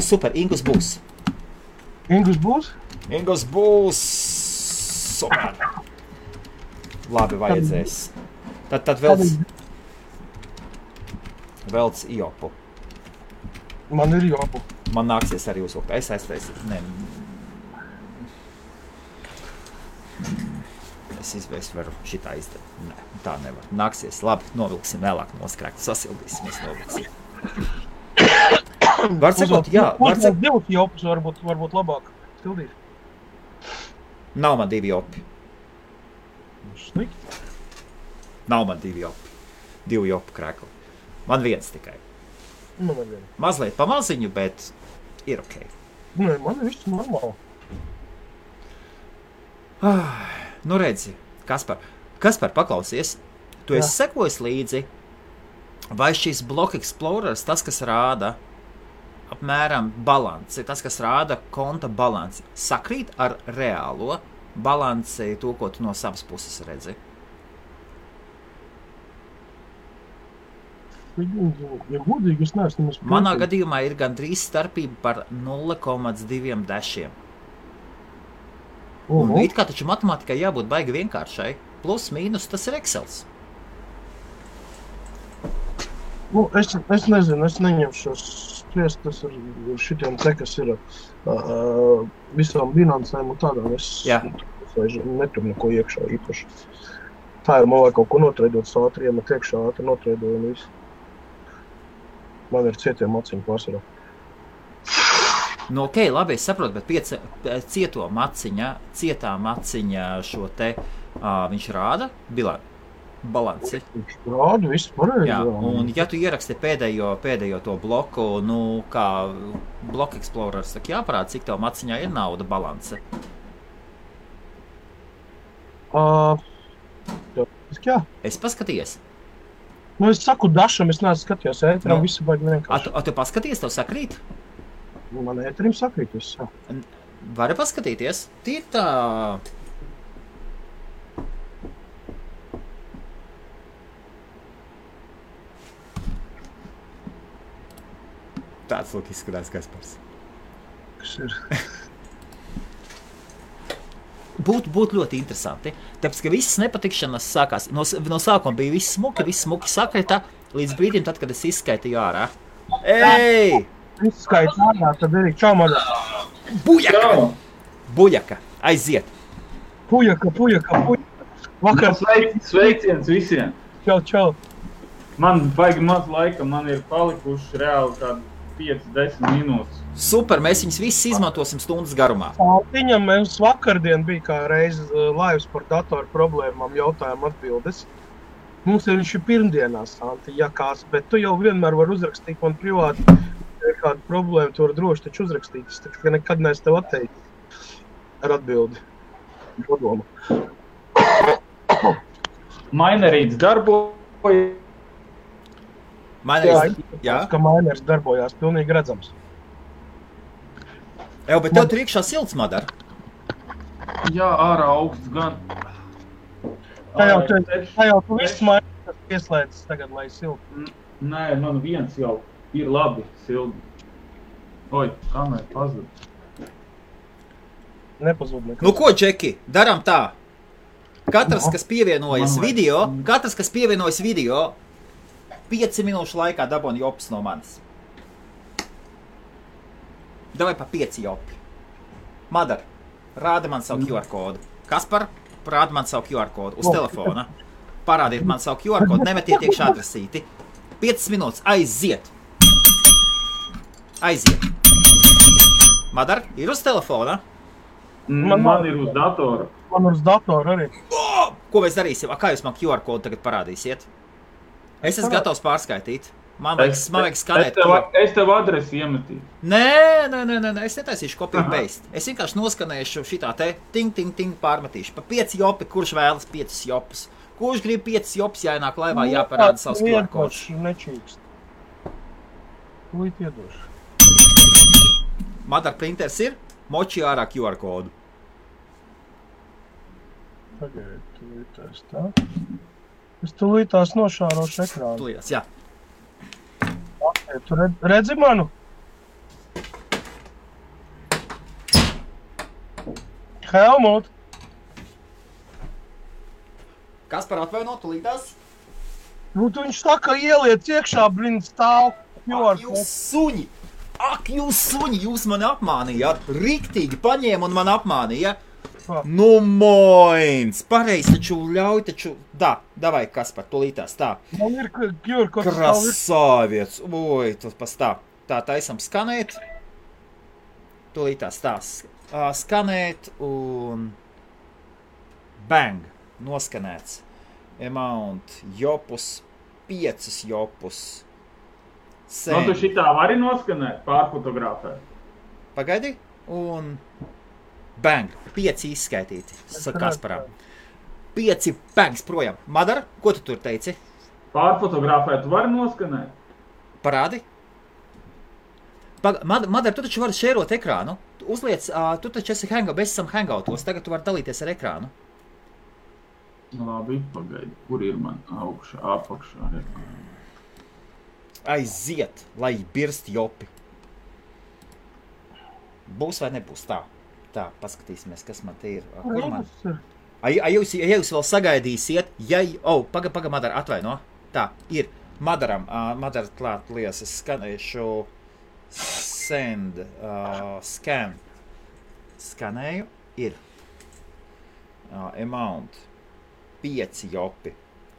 Speaker 2: Super, Ingus būs.
Speaker 1: Ingus būs?
Speaker 2: Ingus būs. Super. Labi, vajadzēs. Tad velc jopu.
Speaker 1: Man ir jopu.
Speaker 2: Man nāksies arī uzvilkt. Es aiztaisīju. Nē. Es varu šitā izdarīt. Nē, tā nevar. Nāksies. Labi, novilksim vēlāk noskrēkt. Sasildīsimies, novilksim. Var sakot, jā.
Speaker 1: Divus jopus varbūt labāk sildīt.
Speaker 2: Nav man 2 jopi.
Speaker 1: Slikti.
Speaker 2: Nav man 2 jopi. 2 jopu krēkli. Man 1 tikai.
Speaker 1: Man ir 1.
Speaker 2: Mazliet pamaziņu, bet ir ok.
Speaker 1: Nē, man ir viss normāli.
Speaker 2: Nu redzi, Kaspar, paklausies, tu esi sekojis līdzi, vai šis Block Explorers, tas, kas rāda apmēram balanci, tas, kas rāda konta balanci, sakrīt ar reālo balanci, to, ko tu no savas puses redzi?
Speaker 1: Ja godīgi, es neesmu
Speaker 2: Manā gadījumā ir gandrīz starpība par 0,2 dešiem. Un it kā taču matemātikai jābūt baigi vienkāršai. Plus, mīnus, tas ir Excels.
Speaker 1: Es nezinu, es neņemšos spriest, tas ir šitiem te, kas ir visām finansēm un tādām. Es netur neko iekšā īpaši. Tā ir, man vajag kaut ko notreidot ātri, iemet iekšā ātri notreidoju un visu. Man ir cietiem maciņu pārsvarā.
Speaker 2: Nu, ok, labi, es saprotu, bet cietā maciņa šo te, viņš rāda balanci.
Speaker 1: Viņš rāda, viss pareizi.
Speaker 2: Jā, un ja tu ieraksti pēdējo to bloku, nu, kā Block Explorers, tak jāparāda, cik tev maciņā ir nauda balance.
Speaker 1: Jā.
Speaker 2: Es paskaties.
Speaker 1: Nu, es saku dašam, es neesmu skatījos ēteram, visu baigi vienkārši.
Speaker 2: Tu paskaties, tev sakrīt?
Speaker 1: Man ēterim sakrīt, viss, jā.
Speaker 2: Vari paskatīties? Tie tā... Tāds lūk izskatās Kaspars.
Speaker 1: Kas ir?
Speaker 2: Būtu ļoti interesanti, tāpēc, ka visas nepatikšanas sākās. No sākuma bija viss smuki sakrita, līdz brīdim, tad, kad es izskaitīju ārā. Ej!
Speaker 1: Izskaiti ārā, tad arī čau, Madar.
Speaker 2: Buļaka, aiziet.
Speaker 1: Pujaka. Vakar
Speaker 3: Sveiciens visiem.
Speaker 1: Čau.
Speaker 3: Man baigi maz laika, man ir palikuši reāli kādi 5-10 minūtes.
Speaker 2: Super, mēs viņus visus izmantosim stundas garumā.
Speaker 1: Santiņam mums vakardien bija kā reiz laivas par datoru problēmām jautājumu atbildes. Mums viņš ir pirmdienās, Santi, jakās, bet tu jau vienmēr var uzrakstīt man privāti. Ja ir kāda problēma, tu var droši taču uzrakstīt. Es tā nekad neesmu tev atteicis ar atbildi. Padomu.
Speaker 3: Mainerīts darbojas.
Speaker 1: Jā, ka mainers darbojās, pilnīgi redzams.
Speaker 2: Jā, bet tev tur iekšā silts, Madar.
Speaker 3: Jā, ārā augsts gan.
Speaker 1: Tā jau tu viss mainers pieslēdzis tagad, lai silti.
Speaker 3: Nē, man viens jau ir labi silti. Oi, kamēr pazud.
Speaker 1: Nepazud nekad.
Speaker 2: Nu ko, Džeki, daram tā. Katrs, kas pievienojas video, 5 minūšu laikā daboni jopas no manis. Davai pa 5 jopi. Madar, rāda man savu QR kodu. Kaspar, rāda man savu QR kodu uz telefona. Parādiet man savu QR kodu, nemetiet iekšā adresīti. 5 minūtes, aiziet. Madar, ir uz telefona?
Speaker 3: Man ir uz datora.
Speaker 1: Man uz datora arī.
Speaker 2: Ko mēs darīsim? Kā jūs man QR kodu tagad parādīsiet? Es esmu gatavs pārskaitīt. Man vajag skanēt.
Speaker 3: Es tev adresi iemetīju.
Speaker 2: Nē, es netaisīšu copy and paste. Es vienkārši noskanēšu šitā te ting pārmetīšu. Pa 5 jopi, kurš vēlas 5 jopas. Kurš grib 5 jopas, jāienāk laivā, jāparāda savs QR kods.
Speaker 1: Nečīkst. Lūdzu, iedošu.
Speaker 2: Madar printers ir, moči ārā QR kodu.
Speaker 1: Pagaidiet, tūlītās tā. Es tūlītās nošārošu ekrānu.
Speaker 2: Tūlītās, jā.
Speaker 1: Tu redzi manu? Helmut!
Speaker 2: Kas par atvainot tūlītās?
Speaker 1: Nu, tu viņš saka, ieliec iekšā, blin, stāv.
Speaker 2: Ak, jūs suņi, jūs mani apmānījāt. Riktīgi paņēma un man apmānīja. Nu, moins. Pareizi taču ļauj taču. Davai, Kaspar, tūlītās tā.
Speaker 1: Man ir QR kods.
Speaker 2: Krasāviets. Oi, tas pas tā. Tā taisam skanēt. Tūlītās tā. Skanēt un bang. Noskanēts. Amount, jopus, 5 jopus.
Speaker 3: Nu, tu šitā vari noskanēt, pārfotografēt.
Speaker 2: Pagaidi, un bang, 5 izskaitīti, Kasparā. 5 bangs projām. Madara, ko tu tur teici?
Speaker 3: Pārfotografēt, tu vari noskanēt?
Speaker 2: Parādi. Madara, tu taču vari šērot ekrānu. Uzliec, tu taču esi mēs esam hangoutos, tagad tu vari dalīties ar ekrānu.
Speaker 3: Labi, pagaidi, kur ir man augšā, apakšā?
Speaker 2: Aiziet, lai birst jopi. Būs vai nebūs? Tā, paskatīsimies, kas man te ir. Kur man? Ja jūs vēl sagaidīsiet, paga, Madara, atvaino. Tā, ir. Madara klāt lies, es skanēšu send, scan. Skanēju, ir. Amount. 5 jopi.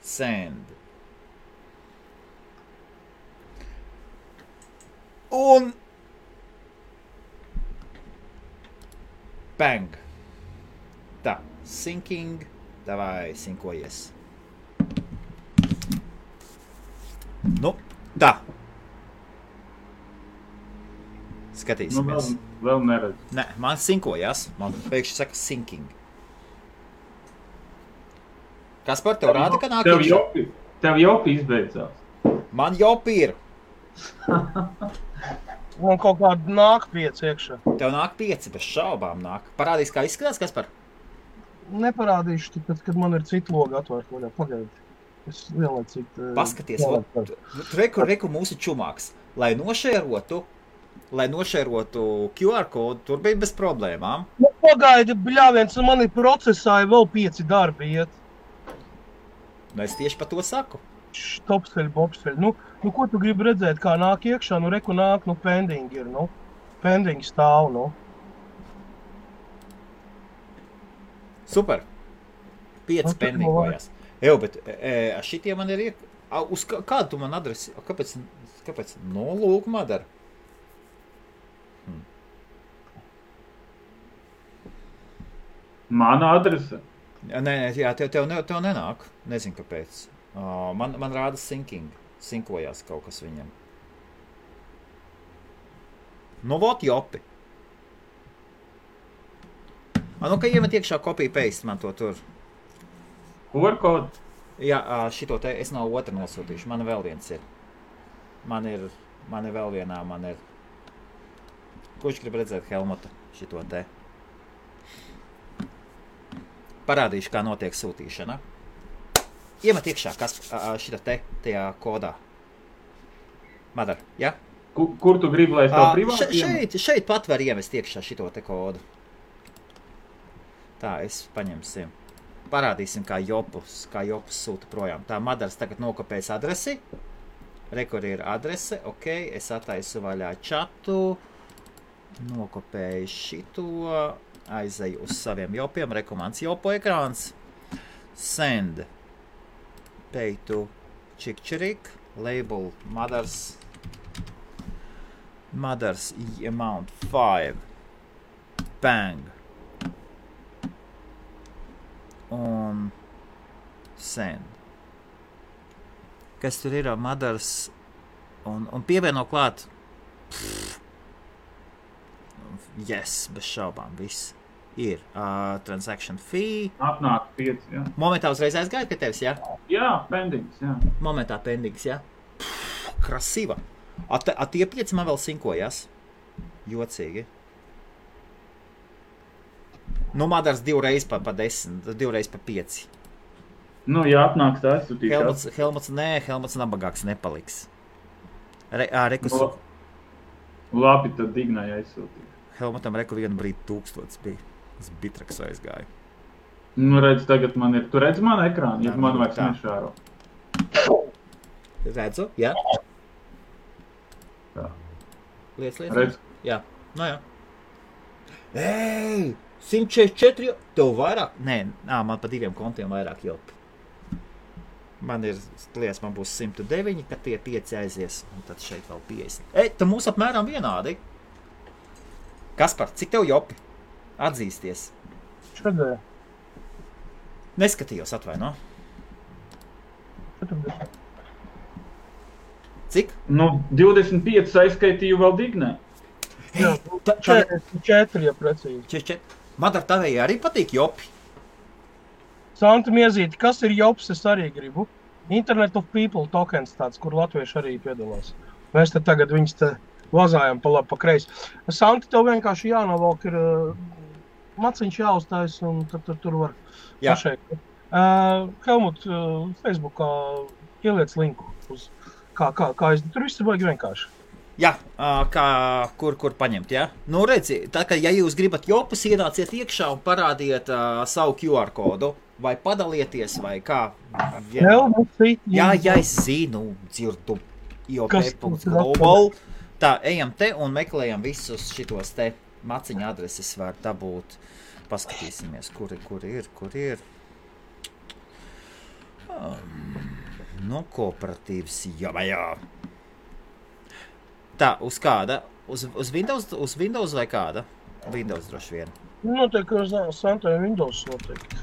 Speaker 2: Send. Un bang. Tā, syncing. Davai, sinkojies. Nu, tā. Skatīsimies.
Speaker 3: Nu, vēl neredz.
Speaker 2: Nē, man sinkojās. Man pēkšņi saka syncing. Kaspar, tev rāda, ka nāk iekšā?
Speaker 3: Tev jopi izbeidzās.
Speaker 2: Man jopi ir.
Speaker 1: Man kaut kāda nāk 5 iekšā.
Speaker 2: Tev nāk 5, bez šaubām nāk. Parādīs, kā izskatās, Kaspar?
Speaker 1: Neparādīšu, tāpēc, kad man ir cita loga atvērta. Pagaidi. Es lielācīt...
Speaker 2: Paskaties, reku mūsu čumāks. Lai nošērotu QR kodu, tur bija bez problēmām.
Speaker 1: Nu, pagaidi, bļāviens, man ir procesā vēl 5 darbi iet.
Speaker 2: Nu, es tieši par to saku.
Speaker 1: Topsteļ, bobsteļ. Nu, ko tu gribi redzēt, kā nāk iekšā? Nu, reku nāk, pending ir, Pending stāv,
Speaker 2: Super. 5 pendingojās. Bet šitie man ir uz kādu tu man adresi? Kāpēc? Nu, lūk, Madara.
Speaker 3: Mana adrese?
Speaker 2: Nē, jā, tev nenāk. Nezinu, kāpēc. Man rāda syncing. Sinkojās kaut kas viņam. Nu, vot jopi. Nu, ka iemet iekšā copy-paste man to tur.
Speaker 3: QR kodu?
Speaker 2: Jā, šito te es nav otra nosūtīšu. Man vēl viens ir. Man ir vēl vienā, Kurš grib redzēt Helmuta šito te? Parādīšu, kā notiek sūtīšana. Iemet iekšā, kas šita te, tajā kodā. Madara, ja?
Speaker 3: Kur tu gribi, lai es tev privāti?
Speaker 2: Šeit pat var iemest iekšā šito te kodu. Tā, es paņemsim. Parādīsim, kā jopus sūta projām. Tā, Madaras tagad nokopēs adresi. Rekur ir adrese, ok, es attaisu vaļā čatu. Nokopēju šito. Aizeju uz saviem jopiem, rekomāns jopo ekrāns. Send. Pay to Čikčerik. Label Madaras amount 5. Bang. Un send. Kas tur ir Madaras un pievieno klāt. Yes, bez šaubām, viss. Ir transaction fee.
Speaker 3: Atnāk 5, jā.
Speaker 2: Momentā uzreiz aizgāja pie tevis, jā?
Speaker 3: Jā, pendings, jā.
Speaker 2: Momentā pendings, jā? Krasīva. Tie 5 man vēl sinkojās. Jocīgi. Nu, Madaras 2 reiz pa 10, 2 reiz pa 5.
Speaker 3: Nu, ja atnāks tā, es sūtīšu.
Speaker 2: Helmuts nabagāks nepaliks.
Speaker 3: Labi, tad Dignai aizsūtīju.
Speaker 2: Helmutam vienu brīdi 1000 bija. Es bitraks aizgāju.
Speaker 3: Nu, redz, tagad man ir. Tu redz manu ekrānu, ja man vairs nešāro.
Speaker 2: Redzu, jā.
Speaker 3: Tā.
Speaker 2: Liec.
Speaker 3: Redz.
Speaker 2: Jā, no jā. Ei, 144, tev vairāk? Nē, man pa 2 kontiem vairāk jopi. Man ir, liekas, man būs 109, kad tie 5 aizies, un tad šeit vēl 50. Ei, tu mūs apmēram vienādi. Kaspar, cik tev jopi? Atzīsties.
Speaker 1: Šodien.
Speaker 2: Neskatījos, atvaino.
Speaker 1: 40.
Speaker 2: Cik?
Speaker 3: Nu, 25 aizskaitīju vēl Dignē.
Speaker 1: Jā, 44, ja precīzi.
Speaker 2: 44. Madar, tavējai arī patīk jopi?
Speaker 1: Santa Miezīti, kas ir jops, es arī gribu. Internet of People tokens tāds, kur latvieši arī piedalās. Mēs te tagad viņus te vazājam pa labi, pa kreisi. Santa, tev vienkārši jānovalk ir maciņš jāuztais un tad tur var pašeit. Helmut, Facebookā ieliec linku uz kā tur viss ir baigi vienkārši.
Speaker 2: Jā, kur paņemt, jā? Nu, redzi, tā kā, ja jūs gribat jopus, ienāciet iekšā un parādiet savu QR kodu, vai padalieties, vai kā. Jā, es zinu, dzirdu IOP.global. Tā, ejam te un meklējam visus šitos te maciņa adreses var dabūt. Paskatīsimies, kur ir. No kooperatīvas, jā. Tā, uz kāda? Uz Windows vai kāda? Windows droši vien.
Speaker 1: Noteikti, ka Santai Windows noteikti.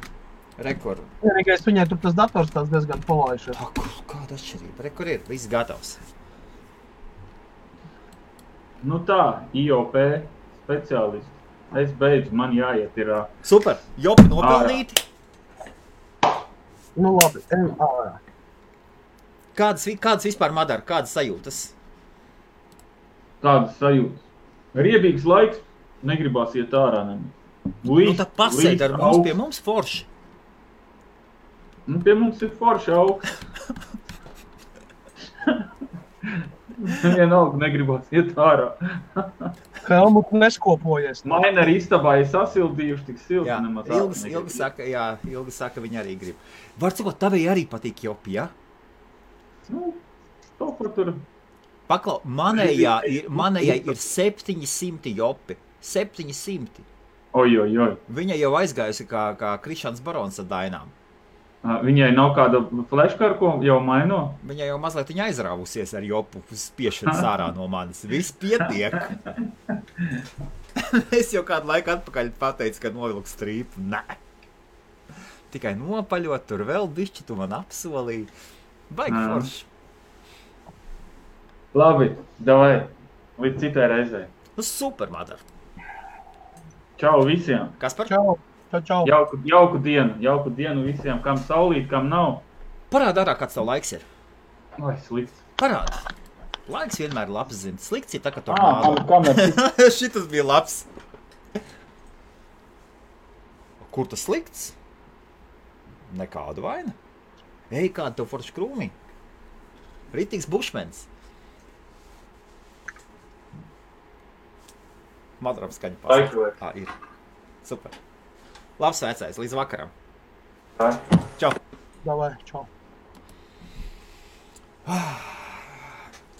Speaker 2: Rekord.
Speaker 1: Vienīgais viņai tur tas dators tās diezgan palaišies.
Speaker 2: Kāda atšķirība? Rekord ir, viss gatavs.
Speaker 3: Nu tā, IOP speciālisti. Es beidzu, man jāiet ir...
Speaker 2: Super, jopi nopelnīti.
Speaker 1: Nu labi, ejam ārā.
Speaker 2: Kādas vispār, Madara, kādas sajūtas?
Speaker 3: Tādas sajūtas. Riebīgs laiks, negribās iet ārā nemaz.
Speaker 2: Nu tad pasēd ar mums, pie mums forši.
Speaker 3: Nu, pie mums ir forši augsts. Vienalga negribās iet ārā.
Speaker 1: Helmut neskopojies.
Speaker 3: Maina ar istabā ir sasildījuši tik silti nemaz.
Speaker 2: Ilgi saka, viņi arī grib. Var cikot, tavai arī patīk jopi, ja?
Speaker 3: Nu, to, kur tur...
Speaker 2: Paklau, manējai ir 700 jopi. 700.
Speaker 3: Oj.
Speaker 2: Viņa jau aizgājusi kā Krišāns Barons ar dainām.
Speaker 3: Viņai nav kāda fleškara, ko jau maino?
Speaker 2: Viņa jau mazliet aizrāvusies ar jopu spiešanu sārā no manis. Viss pietiek. Es jau kādu laiku atpakaļ pateicu, ka novilku strīpu. Nē. Tikai nopaļot, tur vēl bišķi tu man apsolīji. Baigi forši.
Speaker 3: Labi, davai. Līdz citai reizei.
Speaker 2: Nu super, Madara.
Speaker 3: Čau visiem.
Speaker 2: Kaspar?
Speaker 1: Čau.
Speaker 3: Jauku dienu visiem, kam saulīt, kam nav.
Speaker 2: Parāda ārā, kāds tev laiks ir.
Speaker 3: Ai, slikts.
Speaker 2: Parāda. Laiks vienmēr labs zina. Slikts ir tā, ka tornādo. Šitas bija labs. Kur tas slikts? Nekādu vaina. Ej, kāda tev forši krūmī. Ritīgs bušmens. Madaram skaņa pasaka. Ir. Super. Labs vecais, līdz vakaram. Čau.
Speaker 1: Davai, čau.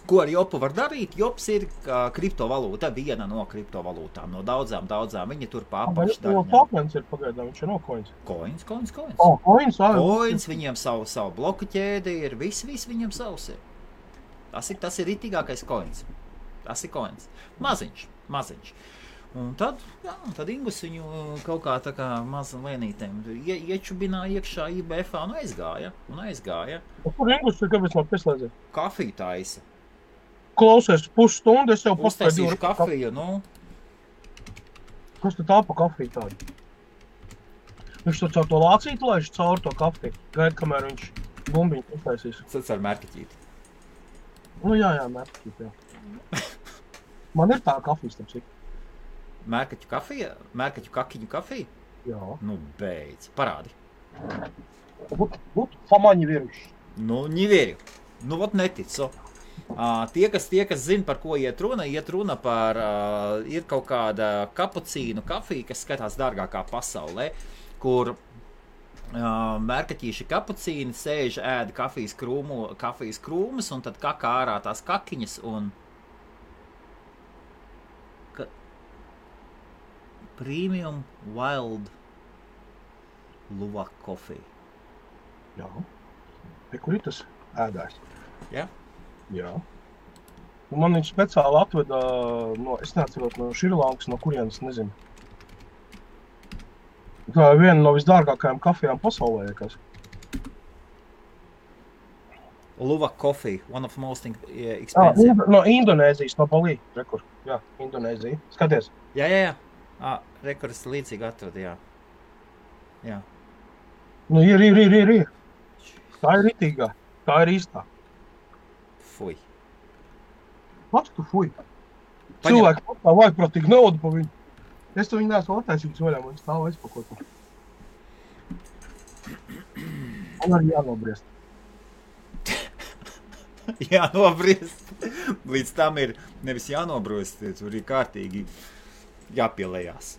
Speaker 2: Ko ar jopu var darīt? Jops ir kriptovalūta, viena no kriptovalūtām, no daudzām. Viņi tur pārpaši
Speaker 1: darīņām. Tokens ir pagaidām, viņš ir no coins.
Speaker 2: Coins.
Speaker 1: Coins,
Speaker 2: viņiem savu bloku ķēdi ir, viss viņiem savs ir. Tas ir ritīgākais coins. Tas ir coins. Maziņš. Un tad Ingus viņu kaut kā tā kā maza lēnītēm iečubināja iekšā IBF-ā un aizgāja.
Speaker 1: Kur Ingus ir, kāpēc man pieslēdzē?
Speaker 2: Kafiju taisa.
Speaker 1: Klausies, pusstundu, es jau
Speaker 2: uztaisīšu kafiju, nu.
Speaker 1: Kas tu tā pa kafiju tādu? Viņš to caur to lācītu laiž caur to kafiju. Gaid, kamēr viņš bumbiņu uztaisīs.
Speaker 2: Tas ar mērķeķīti.
Speaker 1: Nu jā, mērķeķīti, jā. Man ir tā kafijas, tam cik.
Speaker 2: Mērkaķu kafija? Mērkaķu kakiņu kafija?
Speaker 1: Jā.
Speaker 2: Nu, beidz. Parādi.
Speaker 1: Famaņi viruši.
Speaker 2: Nu, ņiverju. Nu, vot neticu. Tie, kas zina, par ko iet runa par, ir kaut kāda kapucīnu kafija, kas skatās dārgākā pasaulē, kur mērkaķīši kapucīni, sēž, ēd kafijas krūmus, un tad kakā ārā tās kakiņas, un Premium Wild Luwak Coffee.
Speaker 1: Jā. Kur ir tas ēdājs?
Speaker 2: Jā?
Speaker 1: Jā. Un man viņš speciāli atveda, es neatceros no Šrilankas, no kurienes, nezinu. Tā ir viena no visdārgākajām kafijām pasaulē, kas.
Speaker 2: Luwak Coffee, one of the most expensive.
Speaker 1: No Indonēzijas, no Balī, rekur. Jā, Indonēzija. Skaties.
Speaker 2: Jā. Rekurs līdzīgi atrada, jā.
Speaker 1: Nu, ir. Tā ir ritīgā. Tā ir īstā.
Speaker 2: Fuj.
Speaker 1: Pats tu fuj. Cilvēki tā vajagprātīgi naudu pa viņu. Es to viņu neesmu attaisījis vaļā, man stāv aizpakot. Man arī jānobriest.
Speaker 2: Jānobriest. Līdz tam ir nevis jānobriest, tur ir kārtīgi jāpielējās,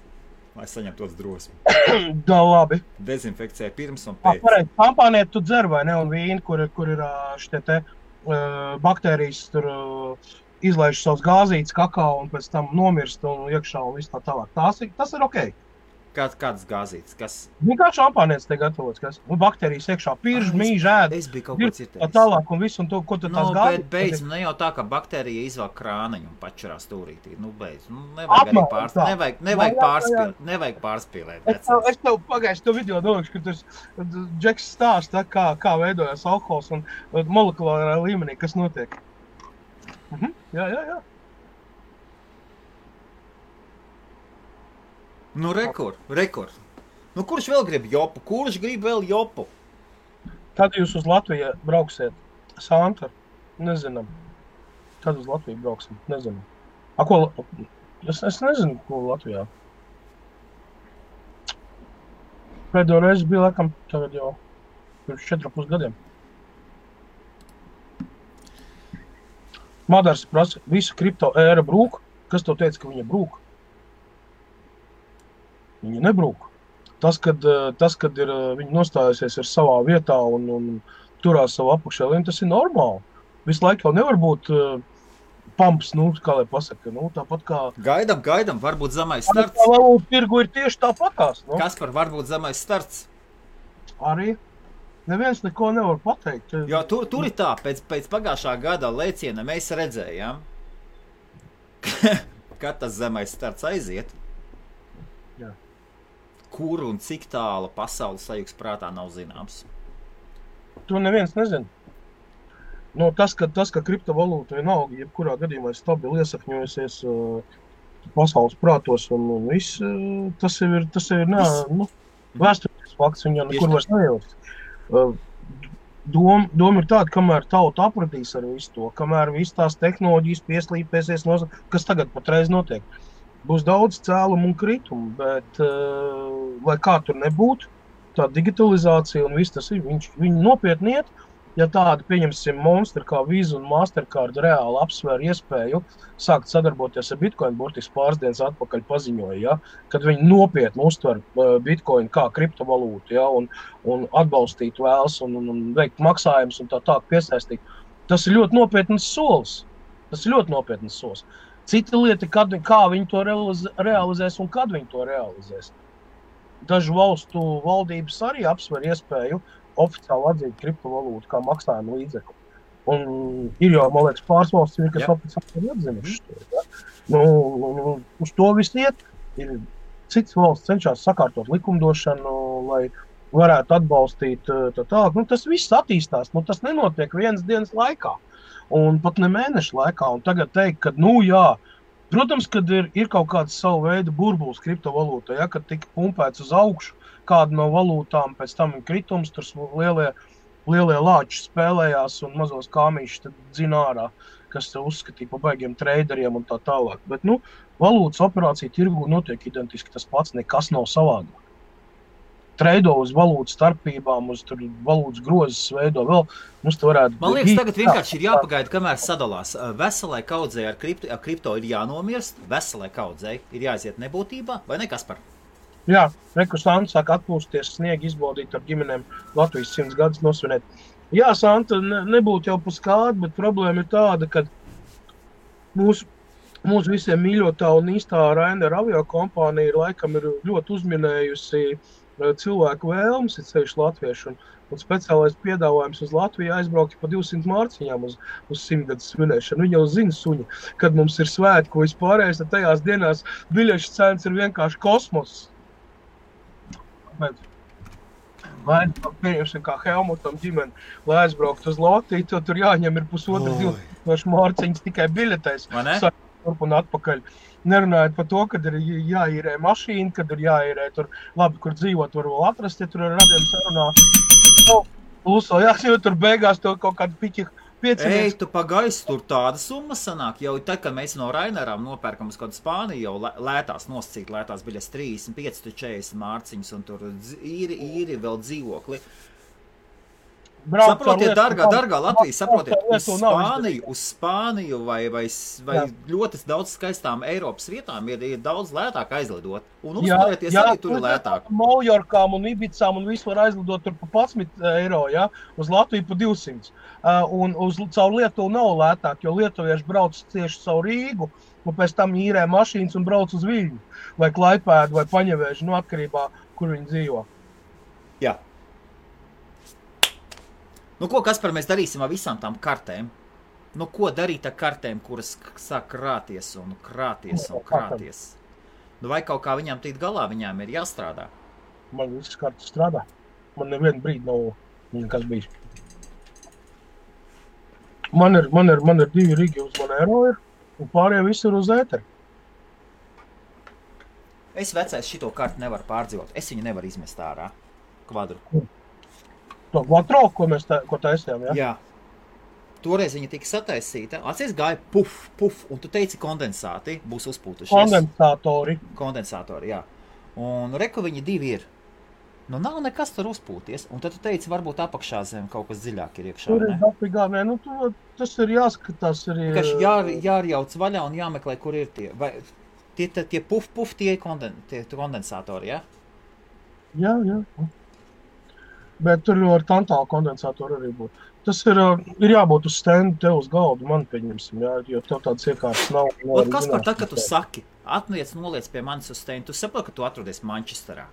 Speaker 2: lai saņemtos drosmi.
Speaker 1: Da, labi.
Speaker 2: Dezinfekcija pirms un pēc.
Speaker 1: Pareizi, šampāniet tu dzer vai ne, un vīni, kur ir šitie te baktērijas, tur izlaiž savus gāzītes kakao un pēc tam nomirst un iekšā un viss tā tālāk. Tas ir okei.
Speaker 2: Kādas gāzītes? Kas?
Speaker 1: Vienkārši šampānietis te gatavots, kas? Un baktērijas iekšā pirž, mīž, ēd.
Speaker 2: Es biju kaut ko citējis.
Speaker 1: Tā tālāk un viss, un to, ko tu tās gāzītes.
Speaker 2: Bet beidz, ne jau tā, ka baktērija izvāk krāniņu un pačurā stūrītī. Beidz. Nevajag arī pārspīlēt.
Speaker 1: Es tev pagājuši to video domāšu, ka tur Džeks stāsta, kā veidojas alkohols un molekulārā līmenī, kas notiek. Jā.
Speaker 2: Nu, rekur. Nu, kurš vēl grib jopu? Kurš grib vēl jopu?
Speaker 1: Kad jūs uz Latviju brauksiet? Santa? Nezinām. Kad uz Latviju brauksim? Nezinām. Es nezinu, ko Latvijā. Pēdējo reizi bija, laikam, tagad jau pirms 4,5 gadiem. Madars prasa, visu kripto ēra brūk. Kas tev teica, ka viņa brūk? Viņa nebrūk. Tas, kad ir viņa nostājusies ar savā vietā un turās savu apakšēlīnu, tas ir normāli. Visu laiku jau nevar būt pumps, kā lai pasaka. Tāpat kā...
Speaker 2: Gaidam, varbūt zemais starts.
Speaker 1: Tā valūta tirgu ir tieši tāpatās.
Speaker 2: Kaspar, varbūt zemais starts. Arī.
Speaker 1: Neviens neko nevar pateikt.
Speaker 2: Jo tur ir tā, pēc pagājušā gada lēciena mēs redzējām, kad tas zemais starts aiziet.
Speaker 1: Jā.
Speaker 2: Kur un cik tālu pasaules sajūgs prātā nav zināms.
Speaker 1: To neviens nezina. Tas, ka kriptovalūta vienalga, jebkurā gadījumā ir stabili iesakņojusies pasaules prātos un viss, tas ir vēsturisks fakts, viņa nekur vairs nejauks. Doma ir tāda, kamēr tauta apradīs ar visu to, kamēr viss tās tehnoloģijas pieslīpēsies, kas tagad patreiz notiek. Būs daudz cēlumu un kritumu, bet, lai kā tur nebūtu, tā digitalizācija un viss tas ir, viņi nopietni iet, ja tādi, pieņemsim, monstri kā Visa un Mastercard reāli apsver iespēju sākt sadarboties ar Bitcoin, burtiski pāris dienas atpakaļ paziņoja, ja, kad viņi nopietni uztver Bitcoin kā kriptovalūtu, ja, un atbalstīt vēlas un veikt maksājumus un tā piesaistīt. Tas ir ļoti nopietnas solis. Cita lieta, kā viņi to realizēs un kad viņi to realizēs. Dažu valstu valdības arī apsver iespēju oficiāli atzīt kriptovalūtu kā maksājumu līdzekli. Un ir jau, man liekas, pāris valsts, kas oficiāli ir atzinušas to. Ja? Uz to viss iet. Ir cits valsts cenšas sakārtot likumdošanu, lai varētu atbalstīt tālāk. Tas viss attīstās, tas nenotiek vienas dienas laikā. Un pat ne mēnešu laikā, un tagad teikt, ka, protams, kad ir kaut kāds savu veidu burbulis kriptovalūtā, ja, kad tika pumpēts uz augšu kādu no valūtām, pēc tam ir kritums, tur lielie lāči spēlējās un mazos kāmīšus tad dzina ārā, kas uzskatīja pa baigiem traderiem un tā tālāk. Bet, valūtas operācija tirgu notiek identiski tas pats, nekas nav savādāk. Treido uz valūtas starpībām, uz valūtas grozes veido vēl.
Speaker 2: Man liekas, tagad vienkārši ir jāpagaida, kamēr sadalās. Veselai kaudzei ar kripto ir jānomirst, veselai kaudzei ir jāiziet nebūtībā, vai ne, Kaspar?
Speaker 1: Jā, reku Santa sāk atpūsties, sniegu izbaudīt ar ģimenēm Latvijas 100 gadus nosvinēt. Jā, Santa, nebūtu jau paskādi, bet problēma ir tāda, ka mūsu visiem mīļotā un īstā Ryanair aviokompānija laikam ir ļoti uzminējusi cilvēku vēlmes, ir ceļš latviešu, un speciālais piedāvājums uz Latviju aizbraukt pa 200 mārciņām uz 100 gadus svinēšanu. Viņi jau zina suņi, kad mums ir svētku vispārējais, tad tajās dienās biļešu cenas ir vienkārši kosmos. Bet vai pieņemsim kā Helmutam ģimeni, lai aizbraukt uz Latviju, to tur jāņem ir pusotru 2000 mārciņas tikai biļetēs. Turp un atpakaļ. Nerunājot par to, kad ir jāīrē mašīna, kad ir jāīrē tur labi, kur dzīvot, var vēl atrast, ja tur ar radiem sarunā. Lūso, jāsīvot tur beigās to kaut kādu piķi 5.
Speaker 2: Ej, tu pagaiss, tur tāda summa sanāk. Jau tad, kad mēs no Ryanairām nopērkam uz kādu Spāniju, jau lētās nosacīt, lētās biļas 35, 40 mārciņas, un tur īri vēl dzīvokli. Saprotiet, dargā Latvija, saprotiet, uz Spāniju vai ļoti daudz skaistām Eiropas vietām ir daudz lētāk aizlidot. Un uzturēties arī tur ir lētāk.
Speaker 1: Maljorkām un Ibicām un visu var aizlidot tur pa 11 eiro, ja? Uz Latviju pa 200. Un caur Lietuvu nav lētāk, jo lietuvieši brauc tieši caur Rīgu, un pēc tam īrē mašīnas un brauc uz Viļņu, vai Klaipēdu, vai Paņevēžu, no atkarībā, kur viņi dzīvo.
Speaker 2: Jā. Nu, ko, Kaspar, mēs darīsim ar visām tām kartēm? Nu, ko darīt ar kartēm, kuras sāk krāties un krāties un krāties? Nu, vai kaut kā viņām tīt galā, viņām ir jāstrādā?
Speaker 1: Man visas kartas strādā. Man nevienu brīdi nav nekas bijis. Man ir 2 rigi uz Monero ir, un pārējie visi ir uz ēteri.
Speaker 2: Es vecais šito kartu nevaru pārdzīvot. Es viņu nevaru izmest ārā. Kvadru.
Speaker 1: To Quattro, ko taisījām, ja?
Speaker 2: Jā. Toreiz viņa tika sataisīta. Atcies gāja puf, un tu teici kondensāti būs uzpūtušies. Kondensātori, jā. Un reku viņi 2 ir. Nu, nav nekas tur uzpūties. Un tad tu teici, varbūt apakšā zem kaut kas dziļāk ir iekšā,
Speaker 1: tur
Speaker 2: ne?
Speaker 1: Tur ir dapigā, ne? Nu, tas ir jāskatās arī...
Speaker 2: Jārjauc vaļā un jāmeklē, kur ir tie. Vai tie puf, tie kondensātori, jā?
Speaker 1: Jā. Bet tur ar tantālu kondensātoru arī būt. Tas ir jābūt uz stendu tev uz galdu, man pieņemsim, jā, jo tev tāds iekārtas nav.
Speaker 2: Un kas par tā, ka tu saki, noliec pie manis uz stendu, tu saproti, ka tu atrodies Manchesterā?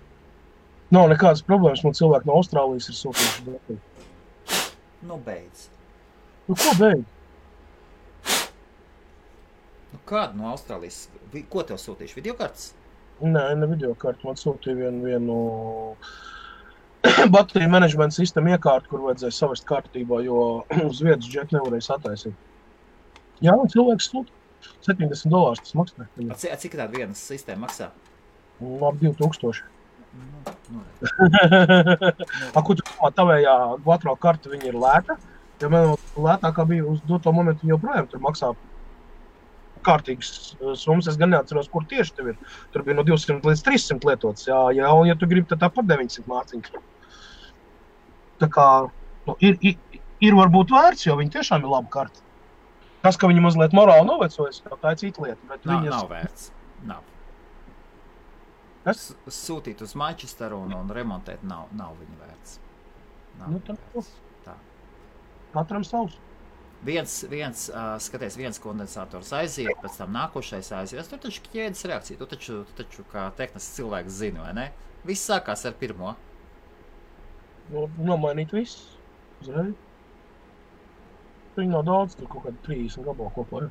Speaker 1: Nav nekādas problēmas, man cilvēki no Austrālijas ir sūtījuši dati.
Speaker 2: Nu, beidz.
Speaker 1: Nu, ko beidz?
Speaker 2: Nu, kādu no Austrālijas? Ko tev sūtījuši? Videokartes?
Speaker 1: Nē, ne videokartu, man sūtīja vienu bateriju menedžmenta sistēmu iekārtu, kur vajadzēja savest kārtībā, jo uz vietas džeki nevarēja sataisīt. Jā, un cilvēks sūta. $70 tas maksā.
Speaker 2: Cik tāda viena sistēma maksā?
Speaker 1: Labi, 2000. Ko tu domā, tavējā Quattro karta viņa ir lēta? Ja man lētākā bija uz doto momentu, viņa joprojām tur maksā kārtīgas summas. Es gan neatceros, kur tieši tev ir. Tur bija no 200 līdz 300 lietots. Jā, un ja tu gribi, tad tāpat 900 mārciņas. Tā kā ir varbūt vērts, jo viņi tiešām ir laba karta. Tas, ka viņi mazliet morāli novecojas, tā ir cita lieta. Bet
Speaker 2: nav vērts. Nav.
Speaker 1: Kas?
Speaker 2: Sūtīt uz Manchesteru un remontēt nav viņa vērts.
Speaker 1: Nu, tā. Katram savs.
Speaker 2: Skaties, kondensators aiziet, pēc tam nākošais aiziet. Tur taču ķēdes reakcija, tu taču kā tehnisks cilvēks zini, vai ne? Viss sākās ar pirmo.
Speaker 1: Nomainīt viss. Uzreiz. Viņi nav daudz, tur kaut kādi 30 gabalu kopā.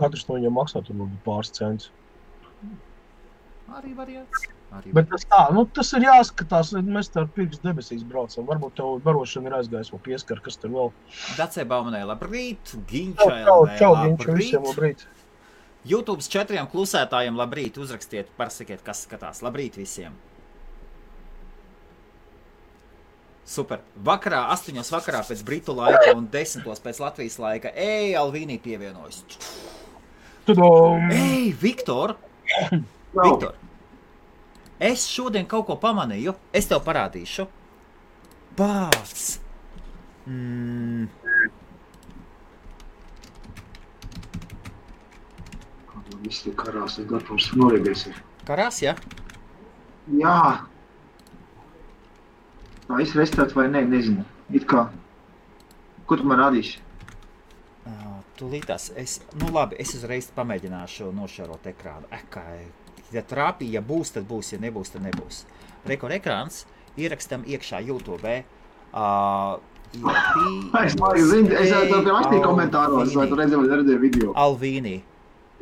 Speaker 1: Katrs no viņiem maksā tur pāris centus.
Speaker 2: Arī variants.
Speaker 1: Bet tas ir jāskatās, mēs tā ar pirks debesīs braucam. Varbūt tev barošana ir aizgājis vēl pieskar, kas tur vēl.
Speaker 2: Dacei Baumanai labrīt, Ginčai
Speaker 1: labrīt.
Speaker 2: YouTube's 4 klusētājiem labrīt, uzrakstiet, pasakiet, kas skatās. Labrīt visiem. Super. Vakarā, 8 vakarā pēc Britu laika un 10 pēc Latvijas laika. Alvīnī pievienojas. Viktor! Viktor! Es šodien kaut ko pamanīju. Es tev parādīšu. Pāc!
Speaker 4: Visi karās ir gatavs norēdies.
Speaker 2: Karās, ja?
Speaker 4: Jā. Tā es restart vai ne, nezinu. It kā. Ko tu man rādīsi?
Speaker 2: Tūlītās. Nu labi, es uzreiz pamēģināšu nošērot ekrānu. Ja trāpī, ja būs, tad būs, ja nebūs, tad nebūs. Rekord ekrāns ierakstam iekšā YouTube.
Speaker 4: Es to rakstīju komentāros, vai tu redzēji video.
Speaker 2: Alvīnī.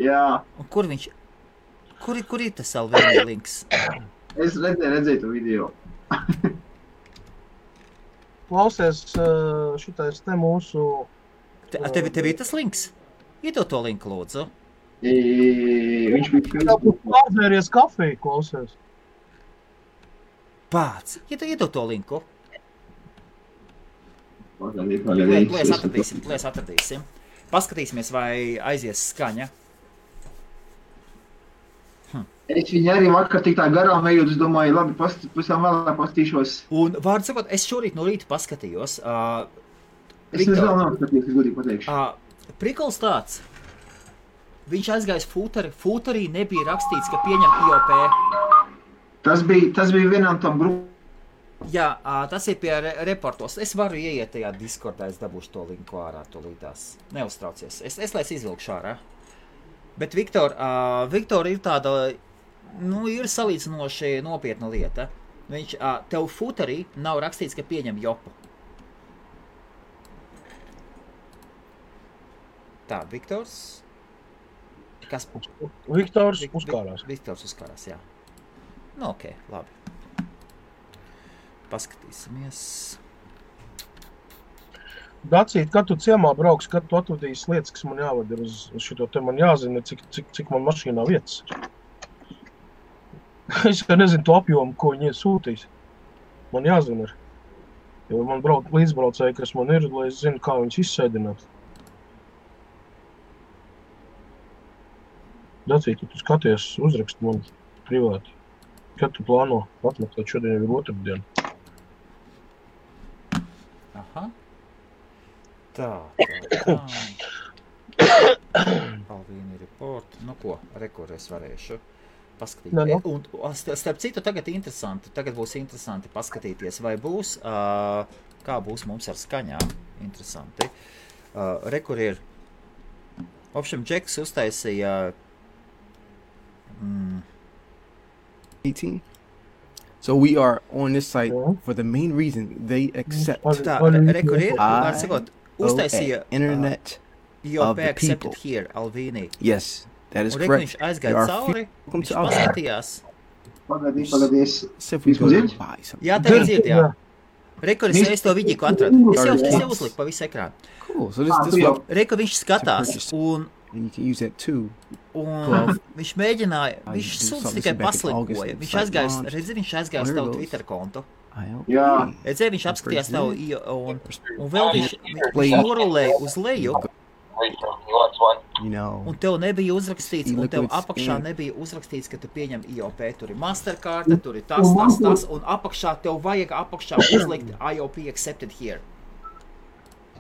Speaker 4: Jā.
Speaker 2: Un kur ir tas Alvīnī links?
Speaker 4: Es redzēju to video.
Speaker 1: Klausies, šitais te mūsu...
Speaker 2: Tev ir tas links? Iedod to linku, lūdzu.
Speaker 4: Viņš bija Facebook.
Speaker 1: Pārdzēries kafiju, klausies.
Speaker 2: Pāc, iedod to linku.
Speaker 4: Pagaidīt.
Speaker 2: Lēs atradīsim. Paskatīsimies, vai aizies skaņa.
Speaker 4: Es viņu arī vakar tik tā garām ejot, es domāju, labi, pavisam vēlāk pastīšos.
Speaker 2: Un, vārdu sakot, es šorīt no rīta paskatījos.
Speaker 4: Es vēl nav skatījos, es godīgi pateikšu.
Speaker 2: Prikols tāds. Viņš aizgājis footerī nebija rakstīts, ka pieņem IOP.
Speaker 4: Tas bija vienam tam grupam.
Speaker 2: Jā, tas ir pie reportos. Es varu ieiet tajā Discordā, es dabūšu to linku ārā tūlītās. Neuztraucies. Es lēc izvilkšu ārā. Bet Viktor ir tāda, ir salīdzinoši nopietna lieta. Viņš, tev footerī nav rakstīts, ka pieņem jopu. Tā, Viktors. Kas?
Speaker 1: Viktors uzkārās.
Speaker 2: Viktors uzkārās, jā. Nu, ok, labi. Paskatīsimies.
Speaker 1: Dacīt, kad tu ciemā brauks, kad tu atvadīsi lietas, kas man jāvada uz šito te, man jāzina, cik man mašīnā vietas. Es nezinu to apjomu, ko viņi sūtīs. Man jāzina ir. Jo man līdzbraucēji, kas man ir, lai es zinu, kā viņus izsēdināt. Dacīt, tu skaties, uzraksti man privāti. Kad tu plāno atmeklēt, šodien ir otrdiena.
Speaker 2: Aha. Tā. Alvīni report. Nu ko, rekur es varēšu paskatīt.
Speaker 1: No.
Speaker 2: Un starp citu, tagad būs interesanti paskatīties, vai būs, kā būs mums ar skaņām. Interesanti. Rekur ir, opšam, Džeks uztaisīja
Speaker 5: 18. So we are on this site for the main reason they accept
Speaker 2: Tā, rekur ir, var sakot, uztaisīja
Speaker 5: internet
Speaker 2: IOP
Speaker 5: the
Speaker 2: accepted
Speaker 5: people.
Speaker 2: here, Alvīnī.
Speaker 5: Yes, that is
Speaker 2: Un rekur
Speaker 5: correct.
Speaker 2: viņš aizgāja cauri, viņš paskatījās.
Speaker 4: Pagaidīs.
Speaker 5: So if we go
Speaker 4: Dzird?
Speaker 5: to buy something.
Speaker 2: Jā, tev dzird, jā. Rekur es to vidiku atradu. Es jau uzliku pa visu ekrānu.
Speaker 5: Cool. So this what
Speaker 2: Rekur viņš skatās, un
Speaker 5: you can use that too.
Speaker 2: viņš mēģināja, viņš
Speaker 5: do
Speaker 2: sūdz
Speaker 5: something
Speaker 2: tikai
Speaker 5: back in August
Speaker 2: paslinkoja.
Speaker 5: and
Speaker 2: Viņš
Speaker 5: site
Speaker 2: aizgājis,
Speaker 5: launch.
Speaker 2: redzi, viņš aizgājis
Speaker 5: Here
Speaker 2: tavu
Speaker 5: goes.
Speaker 2: Twitter kontu.
Speaker 4: Jā.
Speaker 2: Redzi, viņš apskatījās tavu, un vēl viņš norulēja uz leju,
Speaker 5: You know,
Speaker 2: un tev nebija uzrakstīts, un tev
Speaker 5: Liquids
Speaker 2: apakšā
Speaker 5: in.
Speaker 2: nebija uzrakstīts, ka tu pieņem IOP. Tur ir Mastercard, tur ir tas, un apakšā tev vajag apakšā uzlikt IOP accepted here.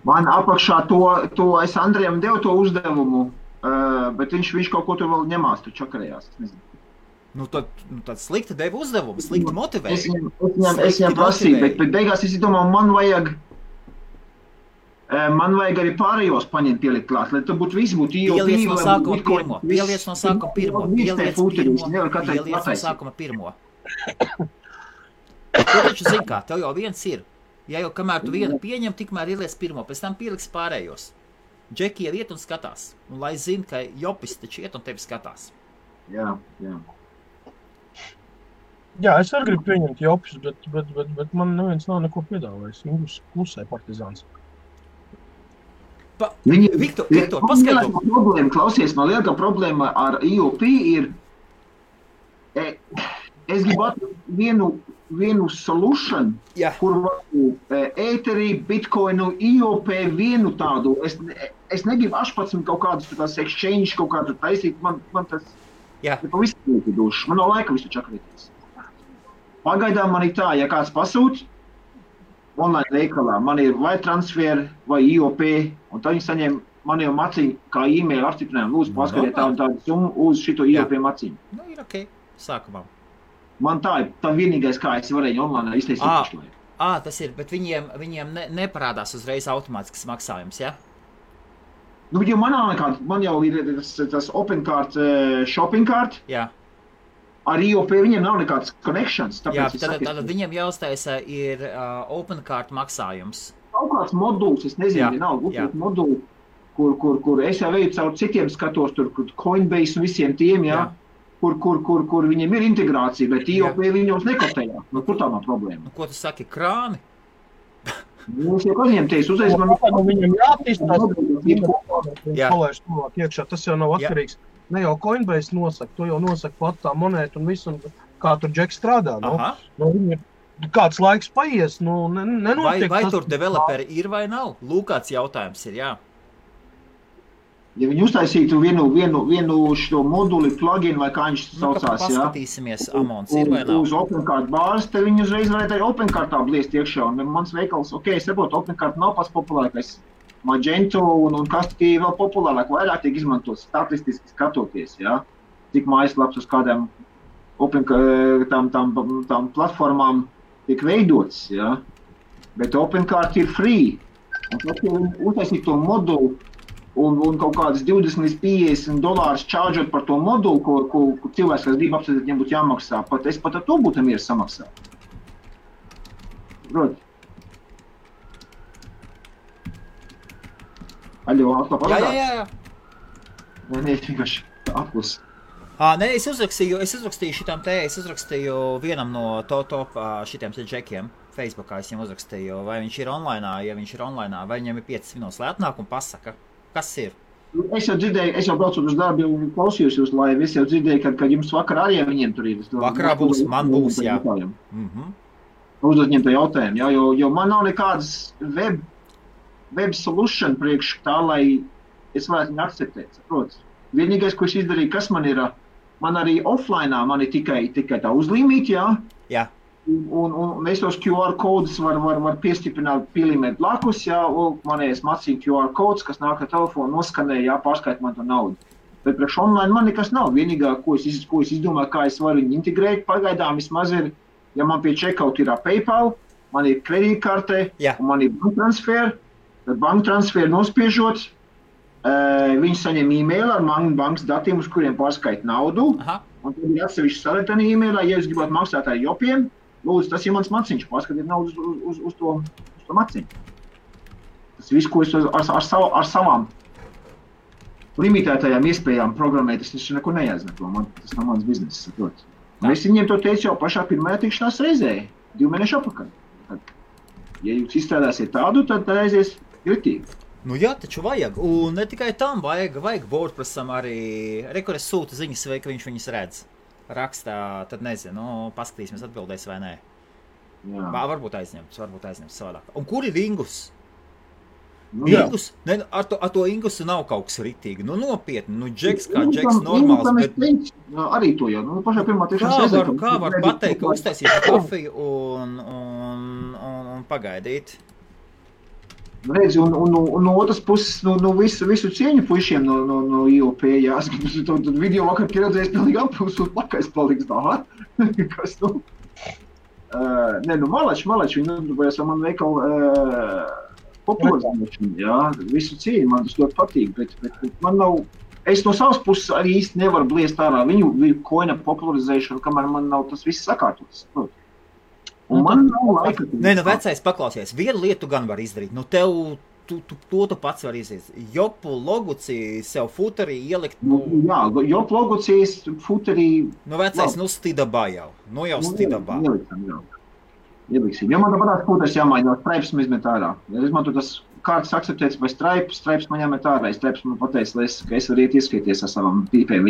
Speaker 4: Man apakšā to es Andrejam devu to uzdevumu, bet viņš kaut ko tur vēl ņemās, tur čakarējās. Es nezinu.
Speaker 2: Nu tad slikti deva uzdevumu, slikti motivēja.
Speaker 4: Es viņam prasīju, bet beigās es domāju, man vajag arī pārējos paņemt pielikt klāt, lai tur viss būtu IOP.
Speaker 2: Pieliec no sākuma pirmo, pieliec no sākuma pirmo. Tu taču zini kā, tev jau viens ir. Ja jau kamēr tu vienu pieņem, tikmēr ieliec pirmo, pēc tam pieliks pārējos. Džeki jau iet un skatās. Un lai zina, ka jopis taču iet un tevi skatās.
Speaker 4: Jā.
Speaker 1: Jā, es arī gribu pieņemt jopus, bet man neviens nav neko piedāvājis. Viņš klusē partizāns.
Speaker 2: Viktor, paskaidro.
Speaker 4: Klausies, man lielākā problēma ar IOP ir, es gribu atrast vienu solution,
Speaker 2: Jā.
Speaker 4: kur ēterī, bitcoinu, IOP vienu tādu. Es negribu 18 kaut kādus tās exchange kaut kādu taisīt, man tas
Speaker 2: Jā.
Speaker 4: ir pavisam duši. Man nav laika visu čakrīties. Pagaidām man ir tā, ja kāds pasūt, online veikalā, man ir vai transfer, vai IOP, un tad viņi saņem man jau maciņu, kā e-mail apstiprinājumu, lūdzu paskatiet tādu summu uz šito IOP maciņu.
Speaker 2: Nu, ir ok, sākumā.
Speaker 4: Man tā vienīgais, kā es varēju online iztaisīt pašlaik.
Speaker 2: Tas ir, bet viņiem neparādās uzreiz automātisks maksājums, ja?
Speaker 4: Nu, jo man jau ir tas OpenCard, shopping card.
Speaker 2: Jā.
Speaker 4: Ar IOP viņiem nav nekādas connections.
Speaker 2: Jā, tad viņiem jāuztaisa ir OpenCard maksājums.
Speaker 4: Kaut kāds moduls, es nezinu, vienalga, moduli, kur es jau veju caur citiem skatos, tur Coinbase un visiem tiem, jā. Kur viņiem ir integrācija, bet IOP viņos nekotējā. Nu, kur tā nav problēma?
Speaker 2: Ko tu saki, krāni?
Speaker 4: Mums jau kāds teiks, uzreiz man...
Speaker 1: Viņam jātīstās, palaiž tuvāk iekšā, tas jau nav atkarīgs. Ne jau Coinbase nosaka, to jau nosaka pat tā monēta un visu, un kā tur Džeks strādā. Kāds laiks paies, nenotiek.
Speaker 2: Vai tur developeri ir vai nav? Lūk, kāds jautājums ir, jā.
Speaker 4: Ja viņi uztaisītu vienu šo moduli, plugin vai kā viņš saucās,
Speaker 2: paskatīsimies, Amons ir vai nav?
Speaker 4: Uz OpenCard bāzes, tad viņi uzreiz varētu arī OpenCardtā bliest iekšā. Un mans veikals, es saprotu, OpenCard nav pats populārākais. Magento un Kastī vēl populārāk, vairāk tiek izmantots statistiski skatoties, cik mājaslaps uz kādām tām platformām tiek veidots, Bet OpenCard ir free. Un tad, ja viņi uztaisīt to modulu, un kaut kādas 20 līdz $50 čārģot par to modulu, ko cilvēks, kas grib apsēdēt, viņam būtu jāmaksā. Es pat ar to būtu mieru samaksāt. Proti. Aļo, atkal parādās?
Speaker 2: Jā.
Speaker 4: Nē, vienkārši aplus.
Speaker 2: Es uzrakstīju vienam no top šitiem džekiem Facebookā, es viņam uzrakstīju, vai viņš ir online, ja viņš ir online, vai viņam ir 5 minūtes, lai atnāk un pasaka. Kas ir?
Speaker 4: Es jau dzirdēju, es jau braucu uz darbu un klausījos jūs laivu. Es jau dzirdēju, kad jums vakarā arī viņiem tur ir.
Speaker 2: Vakarā būs, man būs, jā.
Speaker 4: Uzdot viņiem to jautājumu, jo man nav nekādas web solution priekš tā, lai es varētu viņu akceptēt, saprotas. Vienīgais, ko es izdarīju, kas man ir, man arī offlineā, man ir tikai tā uzlīmīt,
Speaker 2: Jā.
Speaker 4: Un es tos QR kodus var piestiprināt, pielīmēt blakus, manējais macīņu QR kods, kas nāk ar telefonu, noskanē, pārskait man to naudu. Bet priekš online man nekas nav. Vienīgā, ko es izdomāju, kā es varu viņu integrēt, pagaidām vismaz ir, ja man pie checkout ir PayPal, man ir kredītkarte, un man ir banktransfer, tad banktransfer nospiežot, viņi saņem e-mail ar bankas datiem, uz kuriem pārskait naudu, un tad ir atsevišķi saletani e-mailā, ja jūs gribat maksāt ar jopiem, lūdzu, tas ir mans maciņš, paskatiet naudu uz to maciņu. Tas viss, ko es ar savām limitētajām iespējām programmēt, tas neko neaizmeto, tas nav mans bizness, saprot. Un es viņiem to teicu jau pašā pirmajā tikšanās reizē, 2 mēnešu apakaļ. Ja jūs izstrādāsiet tādu, tad aizies kritīgi.
Speaker 2: Nu jā, taču vajag, un ne tikai tam vajag WordPressam arī, kur es sūtu ziņas, vai ka viņš viņas redz. Rakstā, tad nezinu, paskatīsimies atbildēs vai nē.
Speaker 4: Jā.
Speaker 2: Varbūt aizņemts savādāk. Un kur ir Ingus? Ingus? Ne, ar to Ingusu nav kaut kas ritīgi. Nu nopietni, Džeks kā Džeks normāls, bet...
Speaker 4: Arī to jau, pašā pirmā tiešām
Speaker 2: kā var pateikt, ka uztaisīt kafiju un pagaidīt?
Speaker 4: Redzi, un no otras puses, visu cieņu puišiem no IOP, tad video vakar pieredzējis pilnīgi apūs un plakais paliks tā, kas, malači, viņi nodarbojas ar manu veikalu popularizēšanu, visu cieņu, man tas ļoti patīk, bet man nav, es no savas puses arī īsti nevaru bliest ārā viņu koina popularizēšanu, kamēr man nav tas viss sakārtots, Un man nav laika.
Speaker 2: Vecais paklausies. Vienu lietu gan var izdarīt. Tu pats var izdarīt. Jopu logucī sev futerī ielikt.
Speaker 4: Jā, jopu logucīs futerī.
Speaker 2: Vecais, stidabā jau. Jau stidabā.
Speaker 4: Ieliksim. Jo man tāpatās futeris jāmaiņo, stripes man izmet ārā. Ja izmanto tas kārtas akceptēts vai stripes man jāmet ārā. Stripes man pateica, ka es varu iet ieskaities ar savām pīpēm.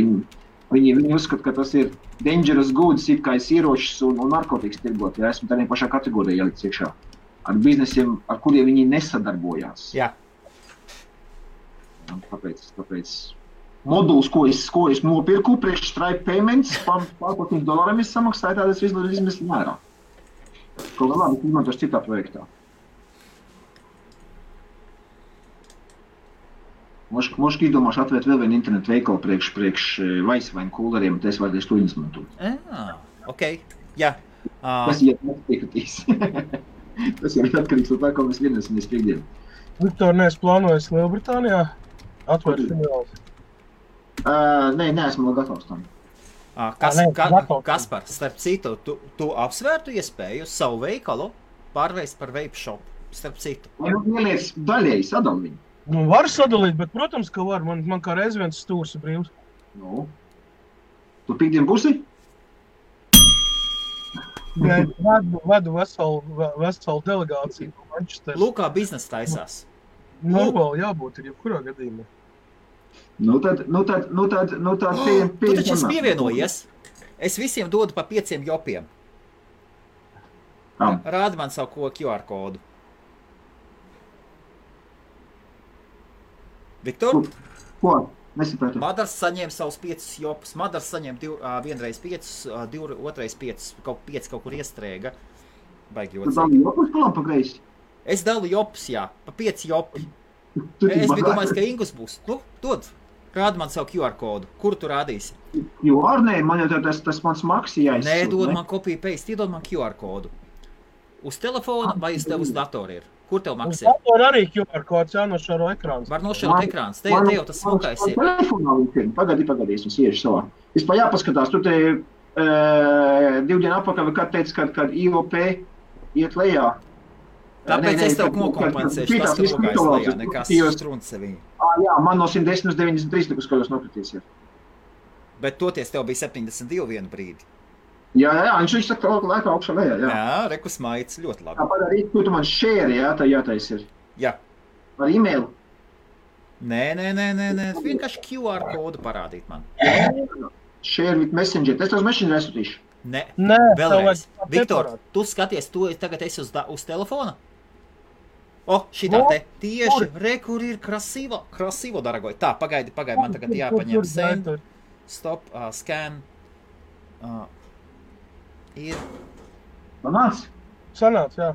Speaker 4: Viņi uzskata, ka tas ir dangerous goods, it kā es ieročus un narkotikas tirgot. Ja esmu tādā pašā kategorijā ielikts iekšā. Ar biznesiem, ar kuriem viņi nesadarbojās.
Speaker 2: Jā.
Speaker 4: Tāpēc moduls, ko es nopirku, priekš Stripe payments, $500 es samaksāju, tādas izmestu mērā. Kaut kā labi, izmantošu citā projektā. Možda izdomāšu atvērt vēl vienu internetu veikalu priekš Vaisvainu kūleriem, un es varētu to izmantot.
Speaker 2: ok, jā.
Speaker 4: Tas ir nepiekritīs. Tas ir atkarīgs no tā, ko mēs vienosimies piekdienu.
Speaker 1: Viktor, neesi plānojis Lielbritānijā atvērt filiālis?
Speaker 4: Nē, neesmu vēl gatavs tam.
Speaker 2: Kaspar, starp citu, tu apsvērtu iespēju savu veikalu pārvērst par vape shop, starp citu.
Speaker 4: Ieliec daļēji sadal viņu.
Speaker 1: Nu, var sadalīt, bet, protams, ka var. Man kā reiz viens stūrs ir brīvs.
Speaker 4: Nu. Tu piekdien būsi?
Speaker 1: Jā, vedu veselu delegāciju no Manchesteras.
Speaker 2: Lūkā biznesa taisās.
Speaker 1: Normāli jābūt ir jebkurā gadījumā.
Speaker 4: Nu tad
Speaker 2: Tu taču esi pievienojies. Es visiem dodu pa 5 jopiem. Rādi man savu QR kodu. Viktor?
Speaker 4: Ko? Nesapratu.
Speaker 2: Madars saņēma savus 5 jopus. Madars saņēma vienreiz 5, otrais 5, kaut kur iestrēga. Baigi
Speaker 4: ļoti. Tu dalu jopus palam pa greisi?
Speaker 2: Es dalu jopus, jā, pa 5 jopi. Es biju domājis, ka Ingus būs. Nu, dod. Rādi man savu QR kodu. Kur tu rādīsi?
Speaker 4: QR, nē, man jau tas mans maksi jāizsūt.
Speaker 2: Nē, dod man copy paste, iedod man QR kodu. Uz telefona vai uz tev uz datoru ir? Kur tev maksā?
Speaker 1: Uz datoru arī QR kods jānošaro ekrāns.
Speaker 2: Var nošarot ekrāns. Te jau tas smukais ir.
Speaker 4: Telefonā viņš pagadi, es iešu savā. Vispār jāpaskatās, tu te 2 dienu apakaļ, kad teici, kad IOP iet lejā.
Speaker 2: Tāpēc es tev nokompensēšu tas, ka nogājis lejā, nekas strunts seviņi.
Speaker 4: Jā, man no 110 uz 93 nekas kaut kas nokritīs ir.
Speaker 2: Bet toties tev bija 72 vienu brīdi.
Speaker 4: Jā, viņš saka, ka laikā augšā lejā, jā.
Speaker 2: Jā, rekus maicis ļoti labi.
Speaker 4: Tāpēc arī, tu man share, jā, tā jātais ir.
Speaker 2: Jā.
Speaker 4: Ar e-mailu?
Speaker 2: Nē, vienkārši QR kodu parādīt man.
Speaker 4: Share with messenger, es tev uz messenger aizsūtīšu.
Speaker 2: Nē, vēlreiz. Viktor, tu skaties, tu tagad esi uz telefona? Šitā te tieši, kur ir krasīvo, daragoj. Tā, pagaidi, man tagad jāpaņem send, stop, scan, ir.
Speaker 4: Sanāc?
Speaker 1: Sanāc, jā.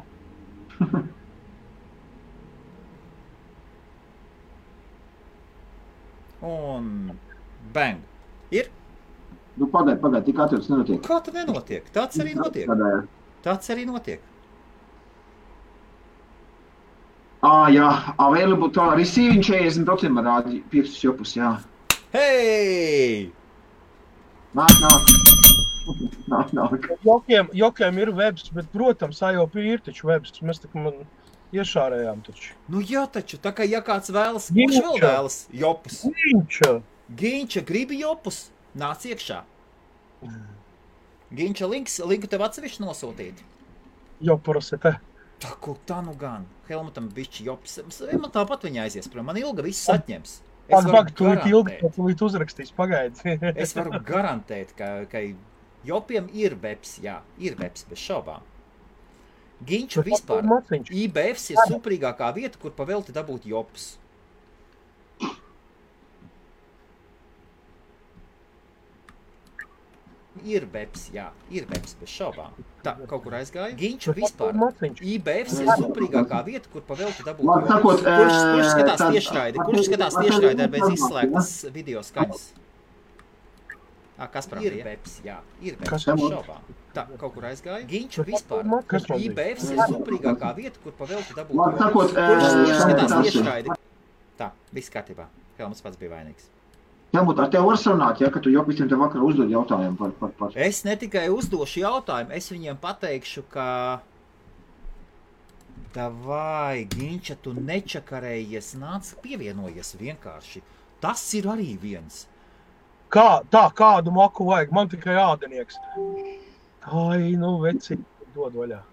Speaker 2: Un bang. Ir?
Speaker 4: Nu, pagaidi, tik atveds nenotiek.
Speaker 2: Kā tad nenotiek? Tāds arī notiek.
Speaker 4: Jā, available to receiving 40% man rādi 5 jopus, jā.
Speaker 2: Hei!
Speaker 4: Nāk.
Speaker 1: Jokiem ir webs, bet, protams, IOP ir taču webs. Mēs tā kā man iešārējām taču.
Speaker 2: Nu jā taču, tā kā ja kāds vēlas, kurš vēl vēlas jopus? Ginča gribi jopus? Nāc iekšā. Ginča linku tev atsevišķi nosūtīt.
Speaker 1: Jopuras ir te.
Speaker 2: Tā nu gan. Helmutam bišķi jops. Man tāpat viņa aizies prom. Man Ilga viss atņems.
Speaker 1: Tūlīt uzrakstīs, pagaidi.
Speaker 2: Es varu garantēt, ka jopiem ir webs, jā. Ir webs, bez šaubām. Ginču vispār. IBFs ir suprīgākā vieta, kur pavelti dabūt jops. Ir webs, jā. Ir webs, bez šaubām. Tā, kaut kur aizgāja. Ginču vispār. IBFs ir suprīgākā vieta, kur pavelti dabūt jops. Kurš skatās tiešraidi? Kurš skatās tiešraidi bez izslēgtas video skaņas? Kaspar, ir webs, jā. Ir webs, bez šaubām. Tā, kaut kur aizgāja. Ginču vispār. IBFs ir suprīgākā vieta, kur pavelti dabūt jops. Kurš skatās tiešraidi? Tā, viss kārtībā. Helmuts pats bija vainīgs.
Speaker 4: Helmut, ar tev var sarunāt, ja, ka tu jau visiem te vakar uzdod jautājumu par...
Speaker 2: Es ne tikai uzdošu jautājumu, es viņiem pateikšu, ka... Davai, Ginča, tu nečakarējies, nāc pievienojies vienkārši. Tas ir arī viens.
Speaker 1: Kādu maku vajag? Man tikai ādenieks. Ai, nu, veci, dod vaļā.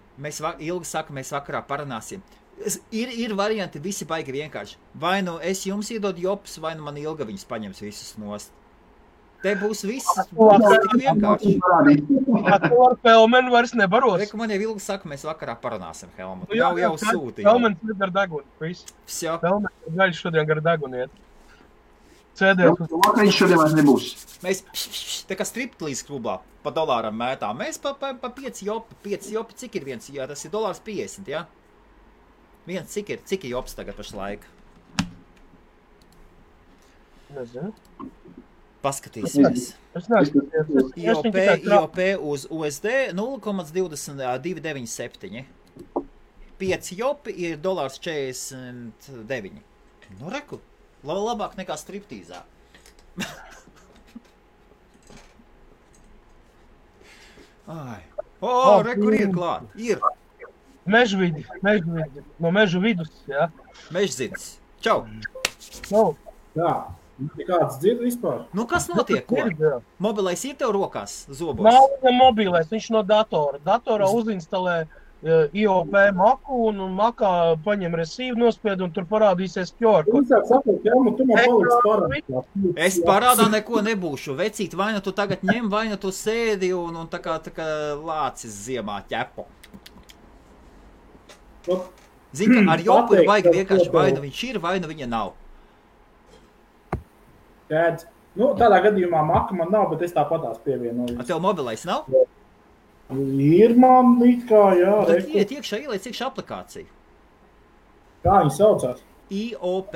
Speaker 2: Ilgi saka, mēs vakarā parunāsim. Ir varianti, visi baigi vienkārši. Vai nu es jums iedodu jopus, vai nu man Ilga viņus paņems visus nost. Te būs viss, tik vienkārši.
Speaker 1: Tu ar Helmenu vairs nebaros.
Speaker 2: Reku, man jau Ilga saka, mēs vakarā parunāsim, Helmut. Jau sūti.
Speaker 1: Helmens ir gar deguni, viss. Helmens ir gaļš šodien gar deguni iet. Cēdiet.
Speaker 4: Vakariņš šodien vairs nebūs.
Speaker 2: Mēs te kā striptlīz klubā pa dolāram mētā. Mēs pa 5 jopi. 5 jopi, cik ir viens? Jā, tas ir $1.50, jā? Viens, cik ir jops tagad pašlaik?
Speaker 1: Nezinu.
Speaker 2: paskatīsimies.
Speaker 1: Es neesmu.
Speaker 2: IOP uz USD 0,2997. 5 jopi ir $49. Nu, reku, labāk nekā striptīzā. Ai. Reku ir klāt. Ir.
Speaker 1: Mežvidi. No mežu vidus, jā.
Speaker 2: Mežzidis. Čau.
Speaker 6: Jā. Nekāds dzird vispār?
Speaker 2: Nu, kas notiek, ko? Mobilais ir tev rokās, zobos?
Speaker 1: Nav viņam mobilais, viņš no datora. Datorā uzinstalē IOP maku un makā paņem resīvu nospied un tur parādīsies QR kods.
Speaker 6: Tu man paliks parādā.
Speaker 2: Es parādā neko nebūšu. Vecīt, vai nu tu tagad ņem, vai nu tu sēdi un tā kā lācis ziemā ķepo. Zini, ka ar jopu ir baigi vienkārši vai nu viņš ir, vai nu viņa nav.
Speaker 6: Tēdz. Nu, tādā gadījumā maka man nav, bet es tāpatās pievienoju.
Speaker 2: Tev mobilais nav?
Speaker 6: Ir man it kā, jā.
Speaker 2: Tad iet iekšā, ieliec iekšā aplikāciju.
Speaker 6: Kā viņi saucās?
Speaker 2: IOP.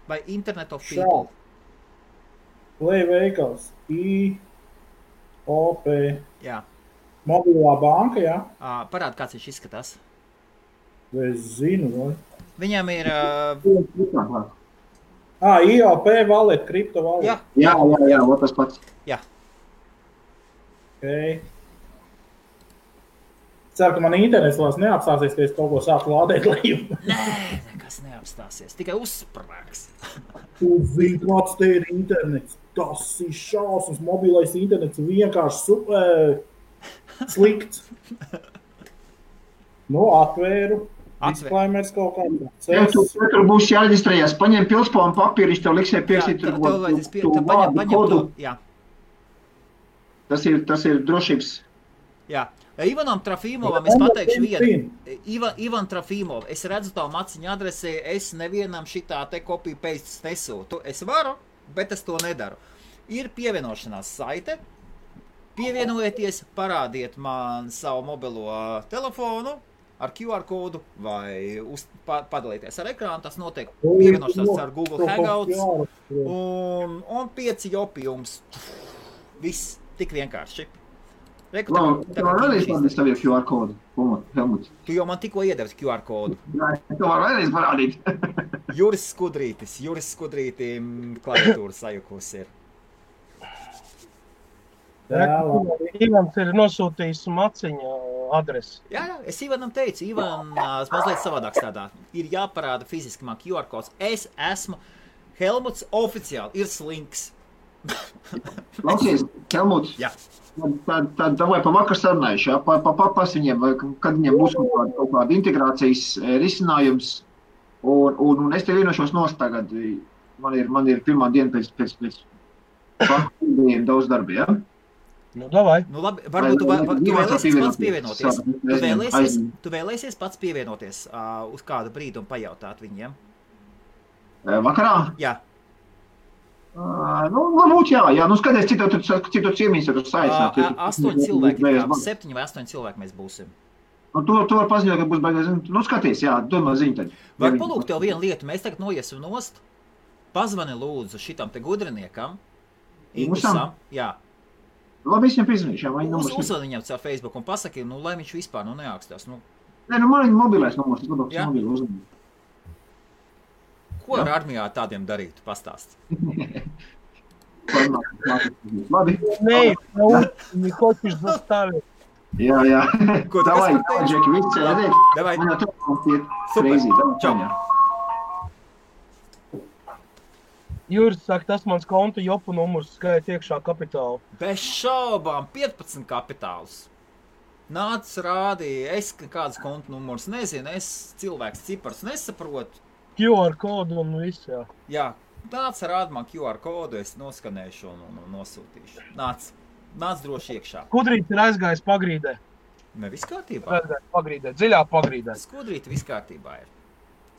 Speaker 2: Vai Internet of People.
Speaker 6: Play veikals. IOP.
Speaker 2: Jā.
Speaker 6: Mobilā banka, jā?
Speaker 2: Parāda, kāds viņš izskatās.
Speaker 6: Es zinu, vai?
Speaker 2: Viņam ir...
Speaker 6: IOP wallet, kripto wallet.
Speaker 4: Jā, tas pats.
Speaker 2: Jā.
Speaker 6: Okay. Ceru, ka man internets vairs neapstāsies, ka es kaut ko sāku lādēt leju.
Speaker 2: Nē, nekas neapstāsies, tikai uzsprāgs.
Speaker 6: Tu zini, kāds te ir internets. Tas ir šausmas, mobilais internets vienkārši super slikts. Nu, atvēru. Disclaimers kaut kādā.
Speaker 4: Tur būs jāreģistrējās. Paņem pilspānu papīru, viņš tev liksē pierakstīt tur
Speaker 2: paņem to, jā.
Speaker 4: Tas ir drošības.
Speaker 2: Jā. Ivanam Trafīmovam es pateikšu vienu. Ivan Trafīmov, es redzu tavu maciņu adresē, es nevienam šitā te copy paste nesūtu. Es varu, bet es to nedaru. Ir pievienošanās saite. Pievienojieties, parādiet man savu mobilo telefonu ar QR kodu vai padalīties ar ekrānu. Tas notiek pievienošanās ar Google Hangouts un 5 jopi jums. Viss tik vienkārši.
Speaker 4: Tu vēlreiz parādīt savu QR kodu, Helmuts.
Speaker 2: Tu jau man tikko iedevis QR kodu.
Speaker 4: Jā, tu var vēlreiz parādīt.
Speaker 2: Juris Skudrītim klaviatūra sajukus ir.
Speaker 1: Ivans ir nosūtījis maciņa adresi.
Speaker 2: Jā, es Ivanam teicu, Ivans mazliet savādāk strādā. Ir jāparāda fiziski man QR kods. Es esmu Helmuts oficiāli, ir slinks.
Speaker 4: Lauksies, Helmuts.
Speaker 2: Jā.
Speaker 4: Tad davai pa vakar sarunājuši, jā, papas viņiem, kad viņiem būs kaut kāda integrācijas risinājums, un es te vienošos nost tagad, man ir pirmā diena pēc vakardiem daudz darbi, jā?
Speaker 1: Nu, davai.
Speaker 2: Nu, labi, varbūt tu vēlēsies pats pievienoties. Tu vēlēsies pats pievienoties uz kādu brīdi un pajautāt viņiem?
Speaker 4: Vakarā?
Speaker 2: Jā.
Speaker 4: Varbūt jā, nu skaties, citu ciemīs tur saistāt.
Speaker 2: 8 cilvēki, 7 vai 8 cilvēki mēs būsim.
Speaker 4: Tu var paziņot, ka būs baigās, nu skaties, jā, domā ziņu tad.
Speaker 2: Var palūgt tev vienu lietu, mēs tagad noiesim nost, pazvani lūdzu šitam te gudriniekam, Indusam, jā.
Speaker 4: Labi, es viņam piezinīšu, jā, vai numurs.
Speaker 2: Uzvani viņam caur Facebook un pasaki, nu, lai viņš vispār neākstās, nu.
Speaker 4: Nē, nu, man ir mobilais numurs, es labāk mobilu uzvanu.
Speaker 2: Ko ar armijā tādiem darīt? Pastāst.
Speaker 4: Labi.
Speaker 1: Nē, не хочешь заставить.
Speaker 4: Jā.
Speaker 2: Ko tu
Speaker 4: Davai,
Speaker 2: kas pateici?
Speaker 4: Džeki, viss redzēt.
Speaker 2: Davai.
Speaker 4: Man jau telefons iet
Speaker 2: Super.
Speaker 4: crazy.
Speaker 2: Čau.
Speaker 1: Juris saka, tas mans konta jopu numurs skait iekšā kapitālu.
Speaker 2: Bez šaubām, 15 kapitāls. Nāc rādīja, es kāds konta numurs nezinu, es cilvēks cipars nesaprotu.
Speaker 1: QR kodu un viss, jā.
Speaker 2: Jā, nāc rād man QR kodu, es noskanēšu un nosūtīšu. Nāc droši iekšā.
Speaker 1: Skudrīts ir aizgājis pagrīdē.
Speaker 2: Ne, viss kārtībā.
Speaker 1: Aizgājis pagrīdē, dziļā pagrīdē.
Speaker 2: Skudrīti viss kārtībā ir.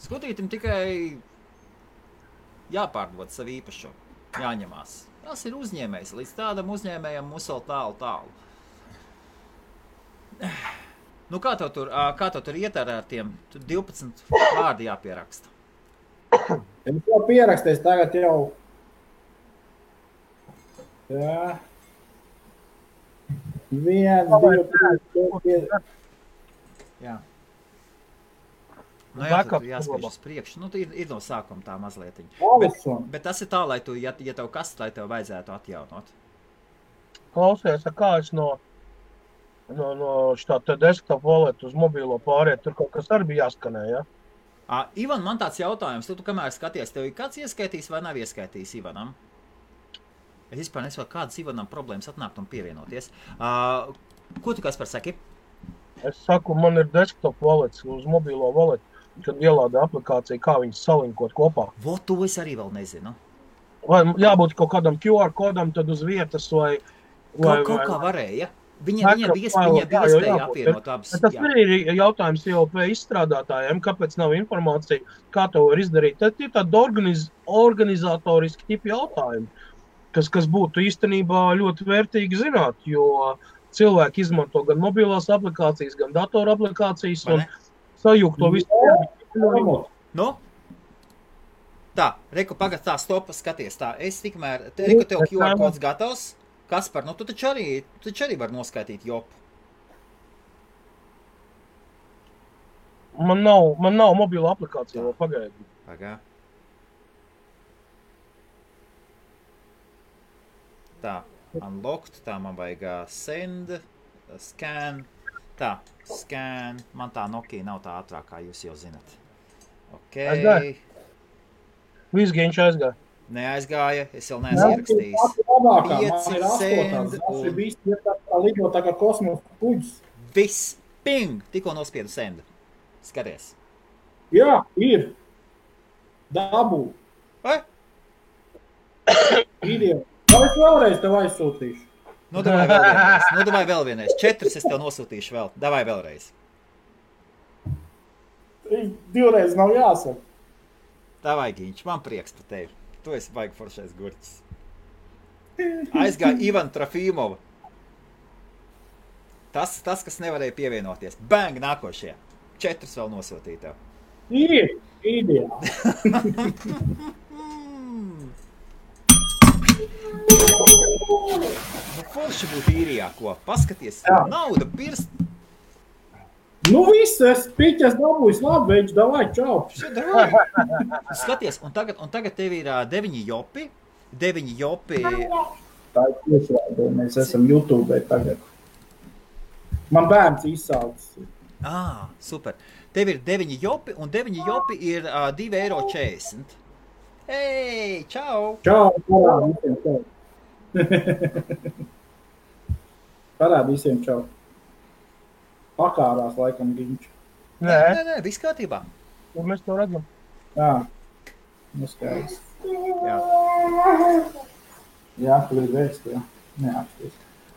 Speaker 2: Skudrītim tikai jāpārdod savu īpašo, jāņemās. Tas ir uzņēmējs, līdz tādam uzņēmējam mums vēl tālu. Nu, kā tev tur iet ar tiem 12 vārdi jāpieraksta?
Speaker 6: Es jau pierakstīju, tagad jau Jā. 1, 2, 3, 4.
Speaker 2: Jā. Nu jā, tu jāspiež uz priekšu. Nu, ir no sākuma tā mazlietiņa. Bet tas ir tā, lai tu, ja tev kas, lai tev vajadzētu atjaunot.
Speaker 1: Klausies, kā es no šitā te desktop wallet uz mobilo pāriet, tur kaut kas arī bija jāskanē, ja?
Speaker 2: Ivan, man tāds jautājums, tu kamēr skaties, tev ir kāds ieskaitījis vai nav ieskaitījis Ivanam? Es vispār nesaku, kādas Ivanam problēmas atnākt un pievienoties. Ko tu Kaspar saki?
Speaker 1: Es saku, man ir desktop wallet uz mobilo wallet, kad ielāda aplikācija, kā viņas salinkot kopā.
Speaker 2: Vo, to es arī vēl nezinu.
Speaker 1: Vai jābūt kaut kādam QR kodam tad uz vietas vai...
Speaker 2: Kaut kā varēja. Viņa bija iespēja apvienot abas.
Speaker 1: Tas arī ir jautājums IOP izstrādātājiem, kāpēc nav informācija, kā to var izdarīt. Tad ir tādi organizatoriski tipi jautājumi, kas būtu īstenībā ļoti vērtīgi zināt, jo cilvēki izmanto gan mobilās aplikācijas, gan datoru aplikācijas un sajūgt to visu.
Speaker 2: Nu? Tā, Reku, pagad tā, stopa, skaties tā. Es tikmēr, Reku, tev QR kods gatavs. Kaspar, nu tu taču arī var noskaitīt jopu.
Speaker 1: Man nav mobila aplikācija, vēl pagaidi.
Speaker 2: Pagā. Tā, unlocked, tā man vajag send, scan, tā, scan. Man tā Nokia nav tā ātrāk, kā jūs jau zinat. Ok.
Speaker 1: Aizgāja. Viss viņš aizgāja.
Speaker 2: Neaizgāja, es vēl neesmu ierakstījis. 5 send un...
Speaker 6: Viss ir tā lido tā kā kosmosa kuģis.
Speaker 2: Viss, ping, tikko nospiedu send. Skaties.
Speaker 6: Jā, ir. Dabū.
Speaker 2: Vai?
Speaker 6: Ideja. Vai es vēlreiz tev aizsūtīšu?
Speaker 2: Nu, davai vēl vienreiz. 4 es tev nosūtīšu vēl. Davai vēlreiz.
Speaker 6: 2 reizes nav jāsaka.
Speaker 2: Davai, Giņš, man prieks par tevi. Tu esi baigi foršais gurķis. Aizgāja Ivan Trofimova. Tas, kas nevarēja pievienoties. Bang, nākošie. 4 vēl nosūtīja tev.
Speaker 6: Ir, ideja.
Speaker 2: Forši būtu īrijā, ko? Paskaties, nauda pirst.
Speaker 6: Nu viss, es piķes dabūjis, labi, veids, davai, čau.
Speaker 2: Skaties, un tagad tev ir 9 jopi. 9 jopi.
Speaker 6: Tā ir tiešraidē, mēs esam YouTube tagad. Man bērns izsaucis.
Speaker 2: Super. Tev ir 9 jopi, un 9 jopi ir 2,40 €. Hei, čau!
Speaker 6: Čau, parād visiem čau. Parād visiem čau. Pakārās laikam Giņš.
Speaker 2: Nē, viss kārtībā.
Speaker 1: Ja mēs to redzam.
Speaker 6: Jā, neskaidrs.
Speaker 2: Jā.
Speaker 6: Jā, tu ir vēst, jā. Neapsties.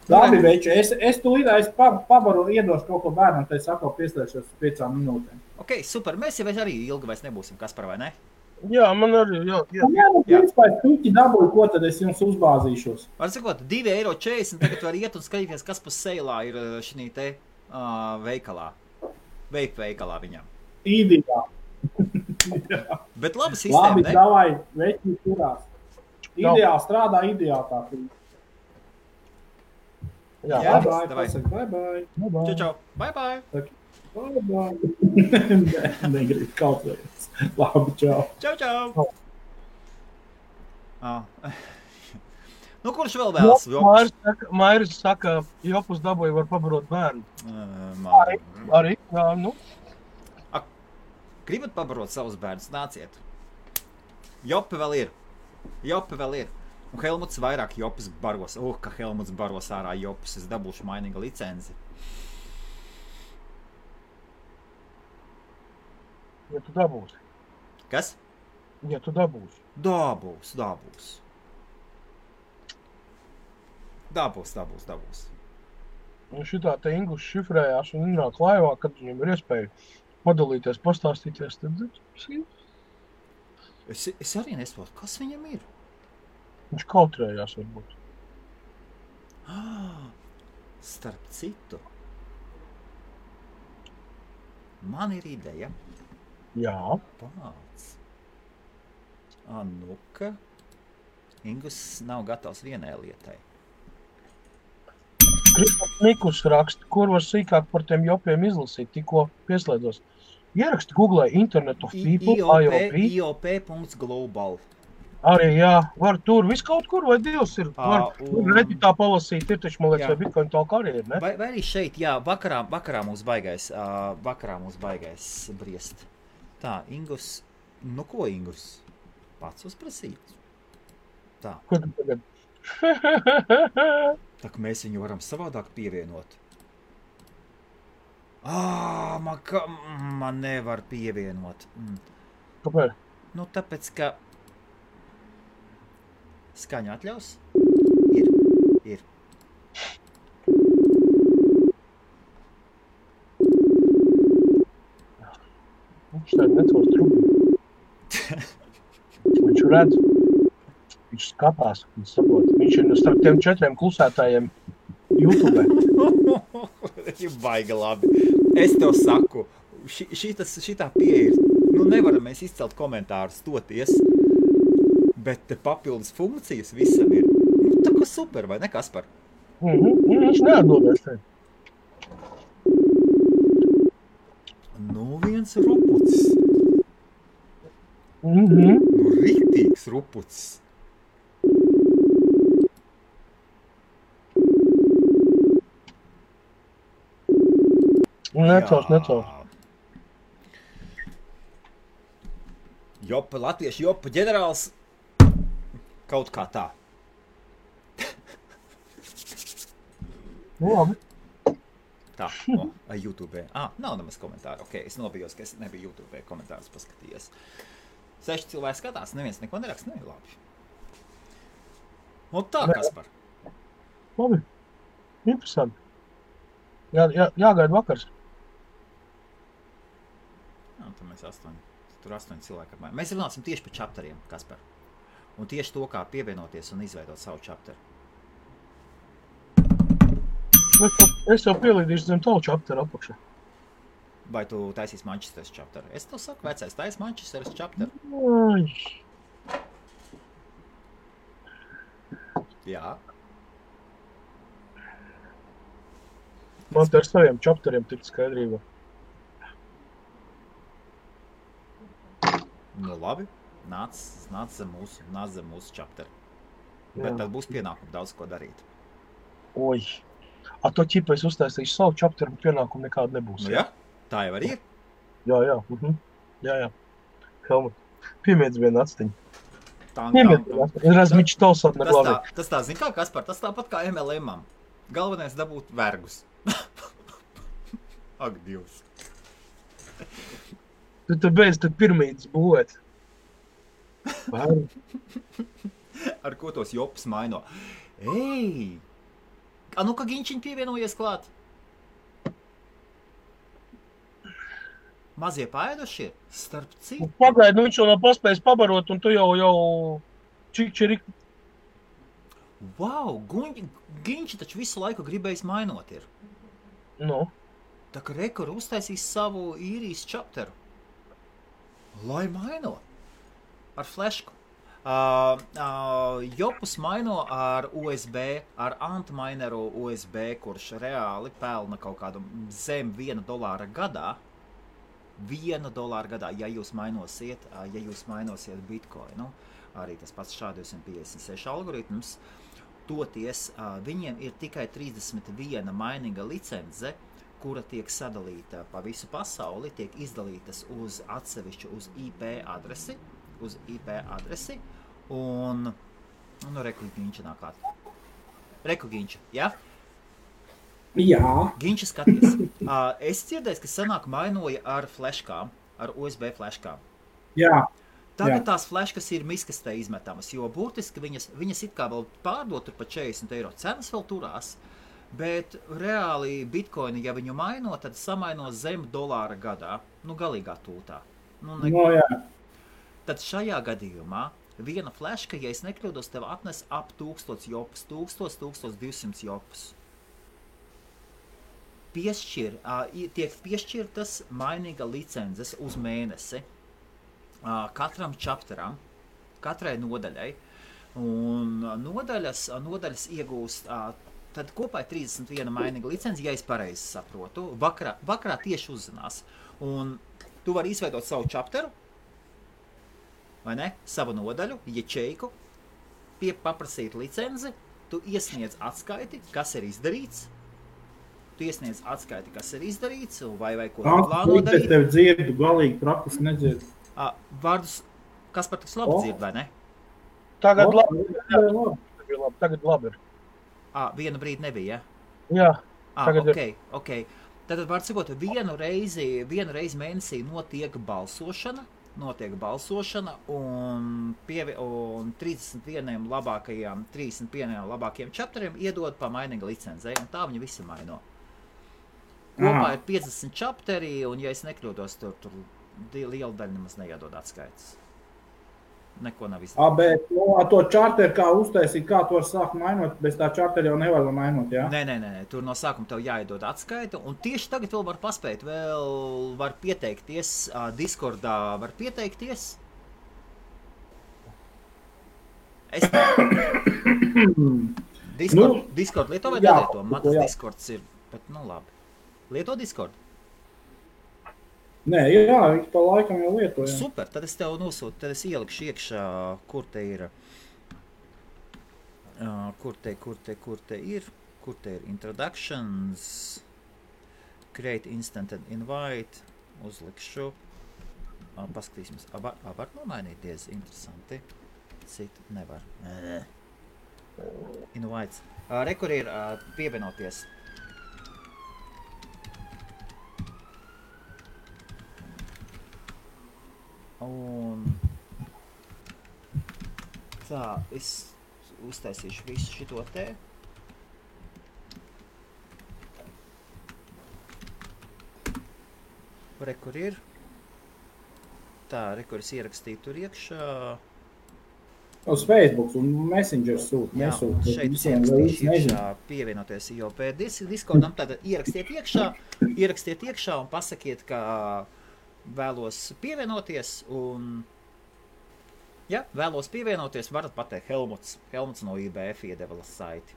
Speaker 6: Labi, veči, es tu lidāju, pabaru iedošu kaut ko bērnam, tad es atkal pieslēgšos 5 minūtēm.
Speaker 2: Ok, super. Mēs jau arī ilgi vairs nebūsim, Kaspar, vai ne?
Speaker 1: Jā, man arī, jā.
Speaker 6: Jā, nu, principā, es tuķi dabūju, ko tad es jums uzbāzīšos.
Speaker 2: Var sakot, 2,40 €, tagad var iet un skatīties, kas pa seilā ir šī te veikalā. Veikalā viņam.
Speaker 6: Ideā.
Speaker 2: Bet labi sistēma,
Speaker 6: labi,
Speaker 2: ne?
Speaker 6: davai, veči turās. Ideā strādā, ideā tā.
Speaker 1: Jā,
Speaker 6: Bye bye,
Speaker 2: davai.
Speaker 6: pasaka, bye bye.
Speaker 2: Čau. Bye bye.
Speaker 6: Bye bye. Negrib kaut vajag. Labi, čau.
Speaker 2: Čau. Nu, kurš vēl vēlas?
Speaker 1: Mairis saka, jopus dabūja var pabarot bērnu. Arī, jā, nu.
Speaker 2: Gribat pabarot savus bērnus? Nāciet. Jopi vēl ir. Un Helmuts vairāk jopus baros. Ka Helmuts baros ārā jopus. Es dabūšu mainīga licenci.
Speaker 1: Ja tu dabūsi.
Speaker 2: Kas?
Speaker 1: Ja tu dabūsi.
Speaker 2: Dabūs.
Speaker 1: Un šitā te Inglis šifrējās un nāk laivā, kad viņam ir iespēja padalīties, pastāstīties. Tad
Speaker 2: es arī nesaprotu, kas viņam ir.
Speaker 1: Viņš kautrējās varbūt.
Speaker 2: Starp citu. Man ir ideja.
Speaker 1: Jā.
Speaker 2: Pāc. Nu-ka. Ingus nav gatavs vienai lietai.
Speaker 1: Nikus raksta, kur var sīkāk par tiem jopiem izlasīt, tikko pieslēdzos. Ieraksti Google Internet of People, IOP.
Speaker 2: IOP.global.
Speaker 1: Arī, jā, var tur, viss kaut kur vai divs ir. Var Redditā palasīt, ir taču, man liekas, vai Bitcoin talk arī ir, ne?
Speaker 2: Vai arī šeit, jā, vakarā mūs baigais briest. Tā, Ingus, nu ko Ingus? Pats uzprasīt. Tā.
Speaker 1: Ko tu tagad?
Speaker 2: Tā, ka mēs viņu varam savādāk pievienot. Man nevar pievienot.
Speaker 1: Kāpēc?
Speaker 2: Nu, tāpēc, ka skaņa atļaus? Ir.
Speaker 1: Viņš tā necos trūkļu. Viņš redz. Viņš skatās, viņš saprot. Viņš ir starp tiem 4 klusētājiem YouTube.
Speaker 2: Baigi labi. Es tev saku, šitā pieeja ir. Nu, nevaram mēs izcelt komentārus toties, bet te papildus funkcijas visam ir. Nu, tā kā super, vai ne, Kaspar?
Speaker 1: Viņš neatdodās te.
Speaker 2: Nu, viens rupucis. Nu, riktīgs rupucis.
Speaker 1: Necels.
Speaker 2: Jopa, latviešu jopa ģenerāls. Kaut kā tā.
Speaker 1: Nu, labi.
Speaker 2: Tā, YouTube. Nav nemaz komentāru. Ok, es nobijos, ka es nebiju YouTube komentārus paskatījies. 6 cilvēki skatās, neviens neko neraksta, ne, labi. Un tā, Kaspar.
Speaker 1: Labi. Interesanti. Jāgaida vakars.
Speaker 2: Tad mēs 8 cilvēki apmēram. Mēs runāsim tieši par chapteriem, Kaspar. Un tieši to, kā pievienoties un izveidot savu chapteru.
Speaker 1: Es jau pielīdīšu zem tavu chapteru apakšā.
Speaker 2: Vai tu taisīs Manchesteras chapteru? Es tev saku, vecais, tais Manchesteras chapteru. Jā.
Speaker 1: Man te ar saviem chapteriem tikt skaidrībā.
Speaker 2: Nu labi, nāc zem mūsu chapteru. Bet tad būs pienākumi daudz ko darīt.
Speaker 1: Oi. To ķipa es uztaisīšu savu chapteru, bet pienākumu nekāda nebūs.
Speaker 2: Nu jā, tā jau arī ir.
Speaker 1: Jā. Jā. Helmut, piemiedz vienu atstiņu. Razmiņš tausot neglābē.
Speaker 2: Tas tā, zin kā, Kaspar, tas tāpat kā MLM-am. Galvenais dabūt vergus. Ak, Dievs.
Speaker 1: Tu beidz tad pirmītes būvēt.
Speaker 2: Ar ko tos jopas maino? Ei! Nu, ka Ginčiņ pievienojies klāt? Mazie paēduši ir? Starp citu?
Speaker 1: Pagaid, viņš jau nav paspējis pabarot, un tu jau čikčerik.
Speaker 2: Wow, Ginči taču visu laiku gribējis mainot ir.
Speaker 1: Nu?
Speaker 2: Tā kā Rekor uztaisīs savu īrijas chapteru. Lai maino. Ar flešku. Jopus maino ar USB, ar antmaineru USB, kurš reāli pelna kaut kādu zem $1 gadā. $1 gadā, ja jūs mainosiet Bitcoinu. Arī tas pats SHA-256 algoritms. Toties viņiem ir tikai 31 maininga licence, kura tiek sadalīta pa visu pasauli, tiek izdalītas uz atsevišķu uz IP adresi, un Reku Ginča nāk klāt. Reku Ginča, jā?
Speaker 6: Jā.
Speaker 2: Ginča skaties. Es dzirdēju, ka senāk mainoja ar fleškām, ar USB fleškām.
Speaker 6: Jā.
Speaker 2: Tagad tās fleškas ir miskastē izmetamas, jo būtiski viņas it kā vēl pārdot tur pa €40. Cenas vēl turās, bet reāli Bitcoini, ja viņu maino, tad samaino zem $1 gadā, galīgā tūtā.
Speaker 6: Jā.
Speaker 2: Tad šajā gadījumā viena fleška, ja es nekļūdos, tev atnes ap 1000 jopas, 1200 jopas. Tiek piešķirtas mainīga licences uz mēnesi. Katram chapteram, katrai nodaļai, Un nodaļas iegūst, tad kopā ir 31 mainīga licenci, ja es pareizi saprotu. Vakarā tieši uzzinās. Un tu vari izveidot savu chapteru, vai ne? Savu nodaļu, ječeiku, paprasīt licenci, tu iesniedz atskaiti, kas ir izdarīts. Vai ko plāno darīt.
Speaker 6: Es tev dzirdu, galīgi praktiski nedzirdu.
Speaker 2: Vārdus, kas par tik labi dzird, vai ne?
Speaker 1: Tagad labi ir.
Speaker 2: Vienu brīdi nebija,
Speaker 1: Jā, tagad
Speaker 2: ok. Tad var sakot, vienu reizi mēnesī notiek balsošana un 31 labākajiem chapteriem iedod pa mainīga licencei, un tā viņa visi maino. Kopā ir 50 chapteri, un ja es nekļūdos, tur liela daļa nemaz neiedod atskaites. Neko nav izdarīt.
Speaker 6: Bet to čarteru kā uztaisīt, kā tu var sākt mainot, bez tā čarteru jau nevar mainot, jā?
Speaker 2: Nē, tur no sākuma tev jāiedod atskaita, un tieši tagad vēl var paspēt, var pieteikties, Discordā var pieteikties. Discord lieto vai nelieto? Man tas Discords ir, bet labi. Lieto Discord?
Speaker 6: Nē, jā, viņš pa laikam jau lieto, jā.
Speaker 2: Super, tad es tev nosūtu, tad es ielikšu iekšā, kur te ir introductions, create instant and invite, uzlikšu, paskatīsimies, var nomainīties, interesanti, citu nevar, invites, kur ir pievienoties. Un tā, es uztaisīšu visu šito te. Kur ir. Tā, kur es ierakstīju tur iekšā.
Speaker 6: Uz Facebook un Messenger sūt.
Speaker 2: Jā, šeit es ierakstīšu iekšā pievienoties IOP Discordam. Tātad ierakstiet iekšā un pasakiet, ka vēlos pievienoties un, varat pateikt Helmuts no IBF iedeva saiti.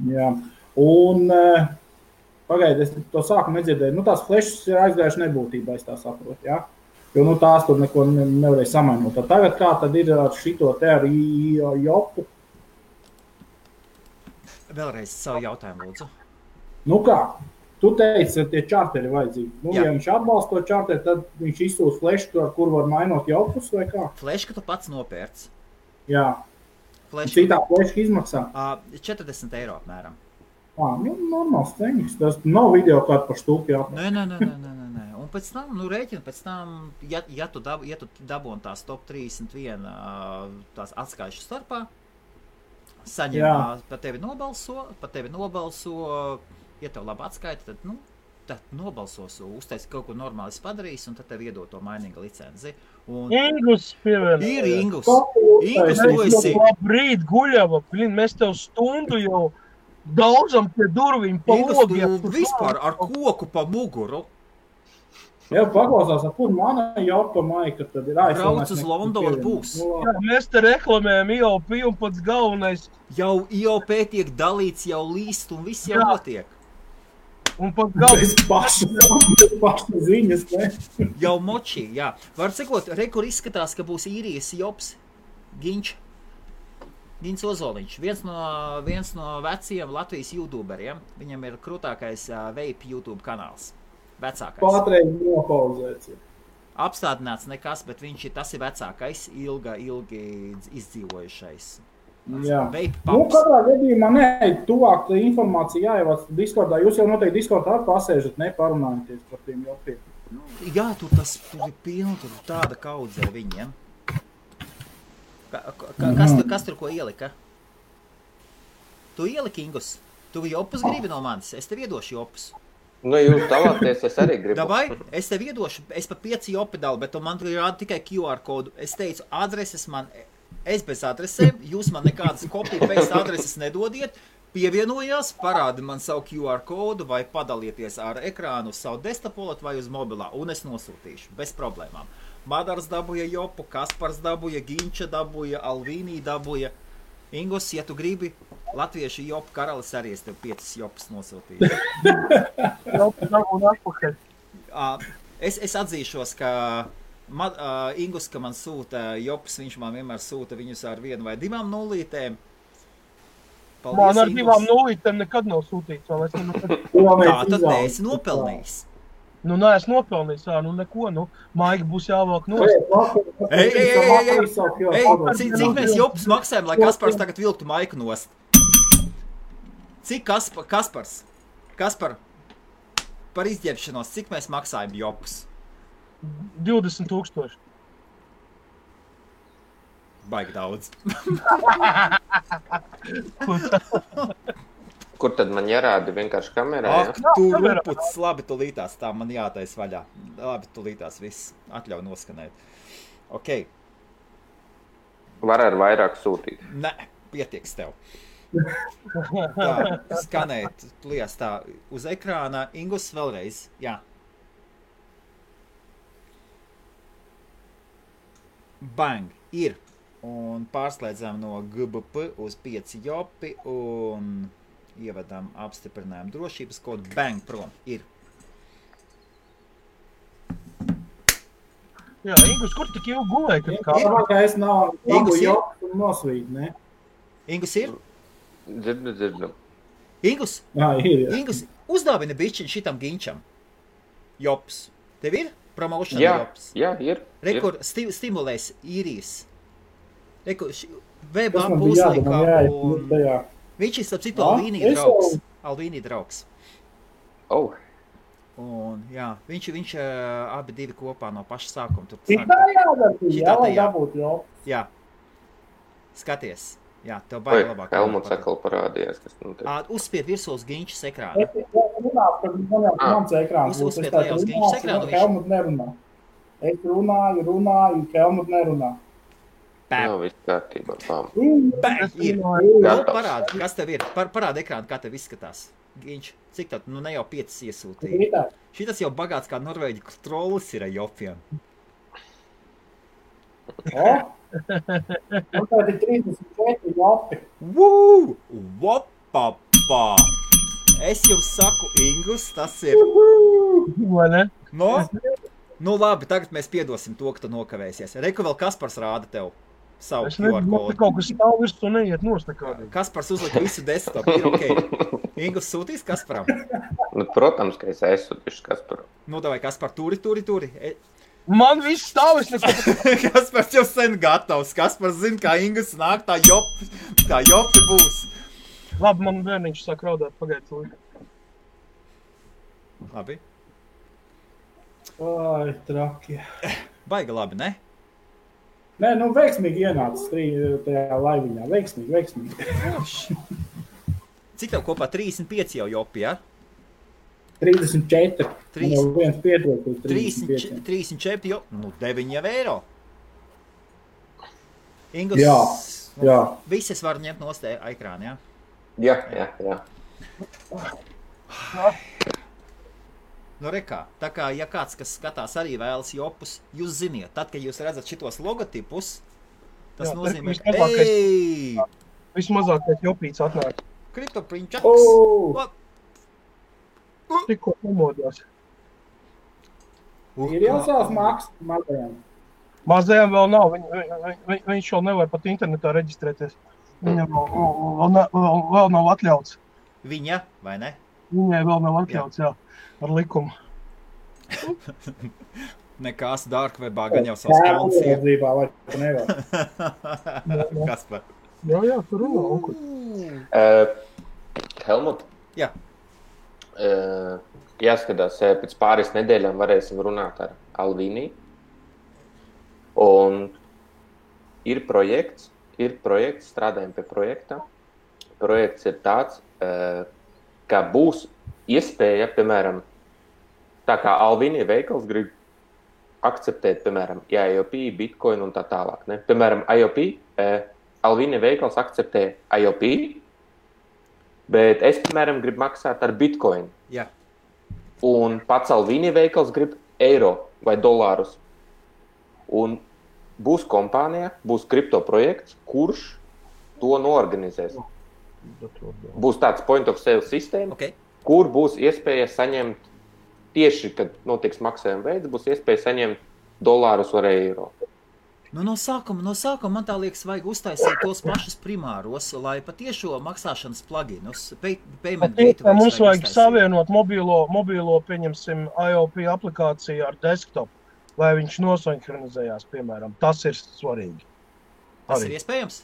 Speaker 6: Jā, un pagaidi, es to sākumu nedzirdēju, tās flešas ir aizgājuši nebūtībā, es tā saprotu, jā? Jo, tās tur neko nevarēja samainot. Tagad kā tad ir ar šito te ar IOPu?
Speaker 2: Vēlreiz savu jautājumu, lūdzu.
Speaker 6: Kā? Tu teici, ka tie čarteri vajadzīgi. Ja viņš atbalsta to čarteri, tad viņš izsūta flešku, ar kuru var mainot jaupus vai kā?
Speaker 2: Flešku tu pats nopērc.
Speaker 6: Jā. Citā fleška izmaksā?
Speaker 2: 40 eiro apmēram.
Speaker 6: Normāls ceņas. Tas nav video kādu par stūpi jāpēc.
Speaker 2: Nē. Un pēc tam, rēķina pēc tam, ja tu dabūni tās top 31 tās atskaišu starpā, saņem, pa tevi nobalso, ja tev labi atskaita, tad nobalsos, uztaisi kaut ko normāli padarīs, un tad tev iedod to mainīga licenci.
Speaker 1: Ingus pievienot.
Speaker 2: Ir Ingus. Ingus, tu esi.
Speaker 1: Labrīt, Guļava, mēs tev stundu jau daudzam pie durvīm pa logiem.
Speaker 2: Ingus, tu vispār ar koku pa muguru.
Speaker 6: Jā, paklausās, kur mana jaupa maika, tad ir
Speaker 2: Brauc uz Londonu būs.
Speaker 1: Jā, mēs te reklamējam IOP un pats galvenais.
Speaker 2: Jau IOP tiek dalīts, jau līst un viss jau notiek.
Speaker 1: Un pat galvenais.
Speaker 6: Bez paša ziņas, ne?
Speaker 2: Jau močī, jā. Var sakot, kur izskatās, ka būs īrijas jops Ginč Ozoliņš. Viens no veciem Latvijas youtuberiem. Viņam ir krūtākais vape YouTube kanāls. Vecākais.
Speaker 6: Patreiz nopauzēts.
Speaker 2: Apstādināts nekas, bet tas ir vecākais, ilgi izdzīvojušais.
Speaker 6: Jā. Katrā gadījumā tuvāk informācija jāievāc Discordā. Jūs jau noteikti Discordā pasēžat, parunājaties par tiem jopiem.
Speaker 2: Jā, tur ir pilni, tur tāda kaudzē viņiem. Kas tur ko ielika? Tu ieliki, Ingus? Tu jopus gribi no manis? Es tev iedošu jopus.
Speaker 7: Jūs dalāties, es arī gribu.
Speaker 2: Dabai, es tev iedošu, es pa 5 jopi dalu, bet man tur rāda tikai QR kodu. Es teicu, es bez adresēm, jūs man nekādas copy-paste adreses nedodiet, pievienojās, parādi man savu QR kodu vai padalieties ar ekrānu uz savu desktopolat vai uz mobilā, un es nosūtīšu, bez problēmām. Madars dabūja jopu, Kaspars dabūja, Ginča dabūja, Alvīnī dabūja. Ingus, ja tu gribi latviešu jopu karalis arī, es tev 5 jopus nosūtīju. Es atzīšos, ka Ingus, ka man sūta jopus, viņš man vienmēr sūta viņus ar 1 vai 2 nulītēm. Paldies,
Speaker 1: man ar
Speaker 2: Ingus.
Speaker 1: 2 nulītēm nekad nav sūtīts.
Speaker 2: Tā tad neesi nopelnījis.
Speaker 1: Nu, neesmu nopelnījis, nu neko, nu, Maigi būs jāvāk nost.
Speaker 2: Cik mēs jopus maksājam, lai Kaspars tagad vilktu Maiku nost? Cik Kaspars, par izģērbšanos, cik mēs maksājam jopus?
Speaker 1: 20 000.
Speaker 2: Baigi daudz.
Speaker 7: Kur tad man jārāda vienkārši kamerā?
Speaker 2: Ak, tu ruputs, labi, tu lītās, tā man jātais vaļā. Labi, tu lītās, viss atļauj noskanēt. Ok.
Speaker 7: Var ar vairāk sūtīt?
Speaker 2: Nē, pietiks tev. Tā, skanēt, lies tā, uz ekrāna. Ingus vēlreiz, jā. Bang, ir. Un pārslēdzām no GBP uz 5 jopi un ievedam apstiprinājumu drošības kodu. Bang, prom, ir.
Speaker 1: Jā, Ingus, kur tik ilgi gulēja?
Speaker 6: Es nav
Speaker 2: Ingus ir?
Speaker 6: joks un nosvīt, ne?
Speaker 2: Ingus ir?
Speaker 7: Dzirdu.
Speaker 2: Ingus?
Speaker 6: Jā, ir.
Speaker 2: Ingus, uzdāvina bišķiņ šitam ginčam. Jops. Tev ir? Promotion jops.
Speaker 7: Jā, ir.
Speaker 2: Rekur stimulēs īrijas. Rekur web
Speaker 6: Tas man bija
Speaker 2: puslīkā
Speaker 6: jādomā,
Speaker 2: un
Speaker 6: jā.
Speaker 2: viņš ir starp citu
Speaker 6: Jā,
Speaker 2: Alvīnija
Speaker 6: es
Speaker 2: draugs.
Speaker 6: jau-
Speaker 2: Alvīnija draugs.
Speaker 7: Oh,
Speaker 2: Un jā, viņš abi divi kopā no paša sākuma. Tur
Speaker 6: Tik tā jādara, jā, lai
Speaker 2: jā.
Speaker 6: dabūtu joks.
Speaker 2: Jā. Skaties. Jā, tev
Speaker 7: vai
Speaker 2: baigi labāk.
Speaker 7: Helmuts atkal parādījās, kas nu te.
Speaker 2: Uzspied virsū uz ginčas ekrāna.
Speaker 6: Es runāju, kad man jau mans ekrāns būs.
Speaker 2: Uzspied
Speaker 6: Es tā
Speaker 2: lejā uz
Speaker 6: runāšu,
Speaker 2: Ginčas ekrānu,
Speaker 6: un
Speaker 2: viņš-
Speaker 6: Helmut nerunā. Es runāju, Helmut nerunā.
Speaker 7: Nav viss kārtībā. Pām.
Speaker 2: Bang, ir.
Speaker 7: Gatavs.
Speaker 2: Parādi, kas tev ir. Parādi ekrānu, kā tev izskatās. Ginč, cik tad? Nu ne jau 5 iesūtīja.
Speaker 6: Tā.
Speaker 2: Šitas jau bagāts kā Norvēģi trollis ir ar jopiem.
Speaker 6: O? Un tad ir 34 jopi.
Speaker 2: Woo! Vopapā! Es jums saku, Ingus, tas ir...
Speaker 1: Vai ne?
Speaker 2: No? Nu labi, tagad mēs piedosim to, ka tu nokavēsies. Reku vēl Kaspars rāda tev savu
Speaker 1: Es nezinu,
Speaker 2: QR
Speaker 1: man te
Speaker 2: kodu.
Speaker 1: kaut kas stāv virs un neiet nost nekādīgi.
Speaker 2: Kaspars uzlika visu desktopu, ir ok. Ingus sūtīs Kasparam?
Speaker 7: Nu, protams, ka es esmu tieši kas par.
Speaker 2: Nu, davai, Kaspar, turi.
Speaker 1: Man viss stāv, es neko...
Speaker 2: Kaspars jau sen gatavs. Kaspars zina, kā Ingus nāk, tā jopi būs.
Speaker 1: Labi, man bērniņš sāk raudāt, pagaid to.
Speaker 2: Labi.
Speaker 6: Ai, traki.
Speaker 2: Baigi labi, ne?
Speaker 6: Nē, nu veiksmīgi ienāca tajā laiviņā. Veiksmīgi.
Speaker 2: Cik tev kopā 35 jau jopi, ja?
Speaker 6: 34.
Speaker 2: Trīs.
Speaker 6: Man jau viens pietrūk uz 35.
Speaker 2: 34 jau, nu 9 jau eiro. Ingus,
Speaker 6: Jā,
Speaker 2: nu,
Speaker 6: jā.
Speaker 2: Visi es varu ņemt nost ekrānu, ja?
Speaker 7: Jā.
Speaker 2: Nu, rekā, tā kā, ja kāds, kas skatās arī vēlas jopus, jūs ziniet, tad, kad jūs redzat šitos logotipus, tas
Speaker 1: Jā,
Speaker 2: nozīmē,
Speaker 1: tas
Speaker 2: ka,
Speaker 1: vislabākais.
Speaker 2: ej,
Speaker 1: Vismazākais jopīts atnāk.
Speaker 2: kriptoprinčaks,
Speaker 6: O!
Speaker 1: Tikko pamodās.
Speaker 6: Ir jau savs mākslas mazajām.
Speaker 1: Mazajam vēl nav, viņš vēl nevar pat internetā reģistrēties. Viņam vēl nav atļauts.
Speaker 2: viņa, vai ne?
Speaker 1: Viņai vēl nav atļauts, jā, ar likumu.
Speaker 2: Nekās darkwebā gan jau savs konts ir.
Speaker 6: Uzraudzībā, vai tu nevar.
Speaker 2: Kaspar.
Speaker 1: Jā, tur runā, onkuļ.
Speaker 7: Helmut,
Speaker 2: Jā,
Speaker 7: jāskatās, pēc pāris nedēļām varēsim runāt ar Alvīniju. Un ir projekts, strādājam pie projekta. Projekts ir tāds, ka būs iespēja, piemēram, tā kā Alvīnija veikals grib akceptēt, piemēram, IOP, Bitcoin un tā tālāk. Ne? Piemēram, IOP, Alvīnija veikals akceptē IOP, bet es, piemēram, gribu maksāt ar Bitcoin.
Speaker 2: jā.
Speaker 7: Un pats Alvīnija veikals grib eiro vai dolārus. Un būs kompānija, būs kripto projekts, kurš to noorganizēs. Būs tāds point of sale sistēma, kur būs iespēja saņemt tieši, kad notiks maksājuma veids, būs iespēja saņemt dolārus vai eiro.
Speaker 2: Nu, no sākuma man tā liekas, vajag uztaisīt tos pašus primāros, lai patiešo maksāšanas pluginus, payment gateway.
Speaker 1: Mums vajag savienot mobilo, pieņemsim, IOP aplikāciju ar desktop, lai viņš nosinhronizējās, piemēram. Tas ir svarīgi.
Speaker 2: Tas ir iespējams?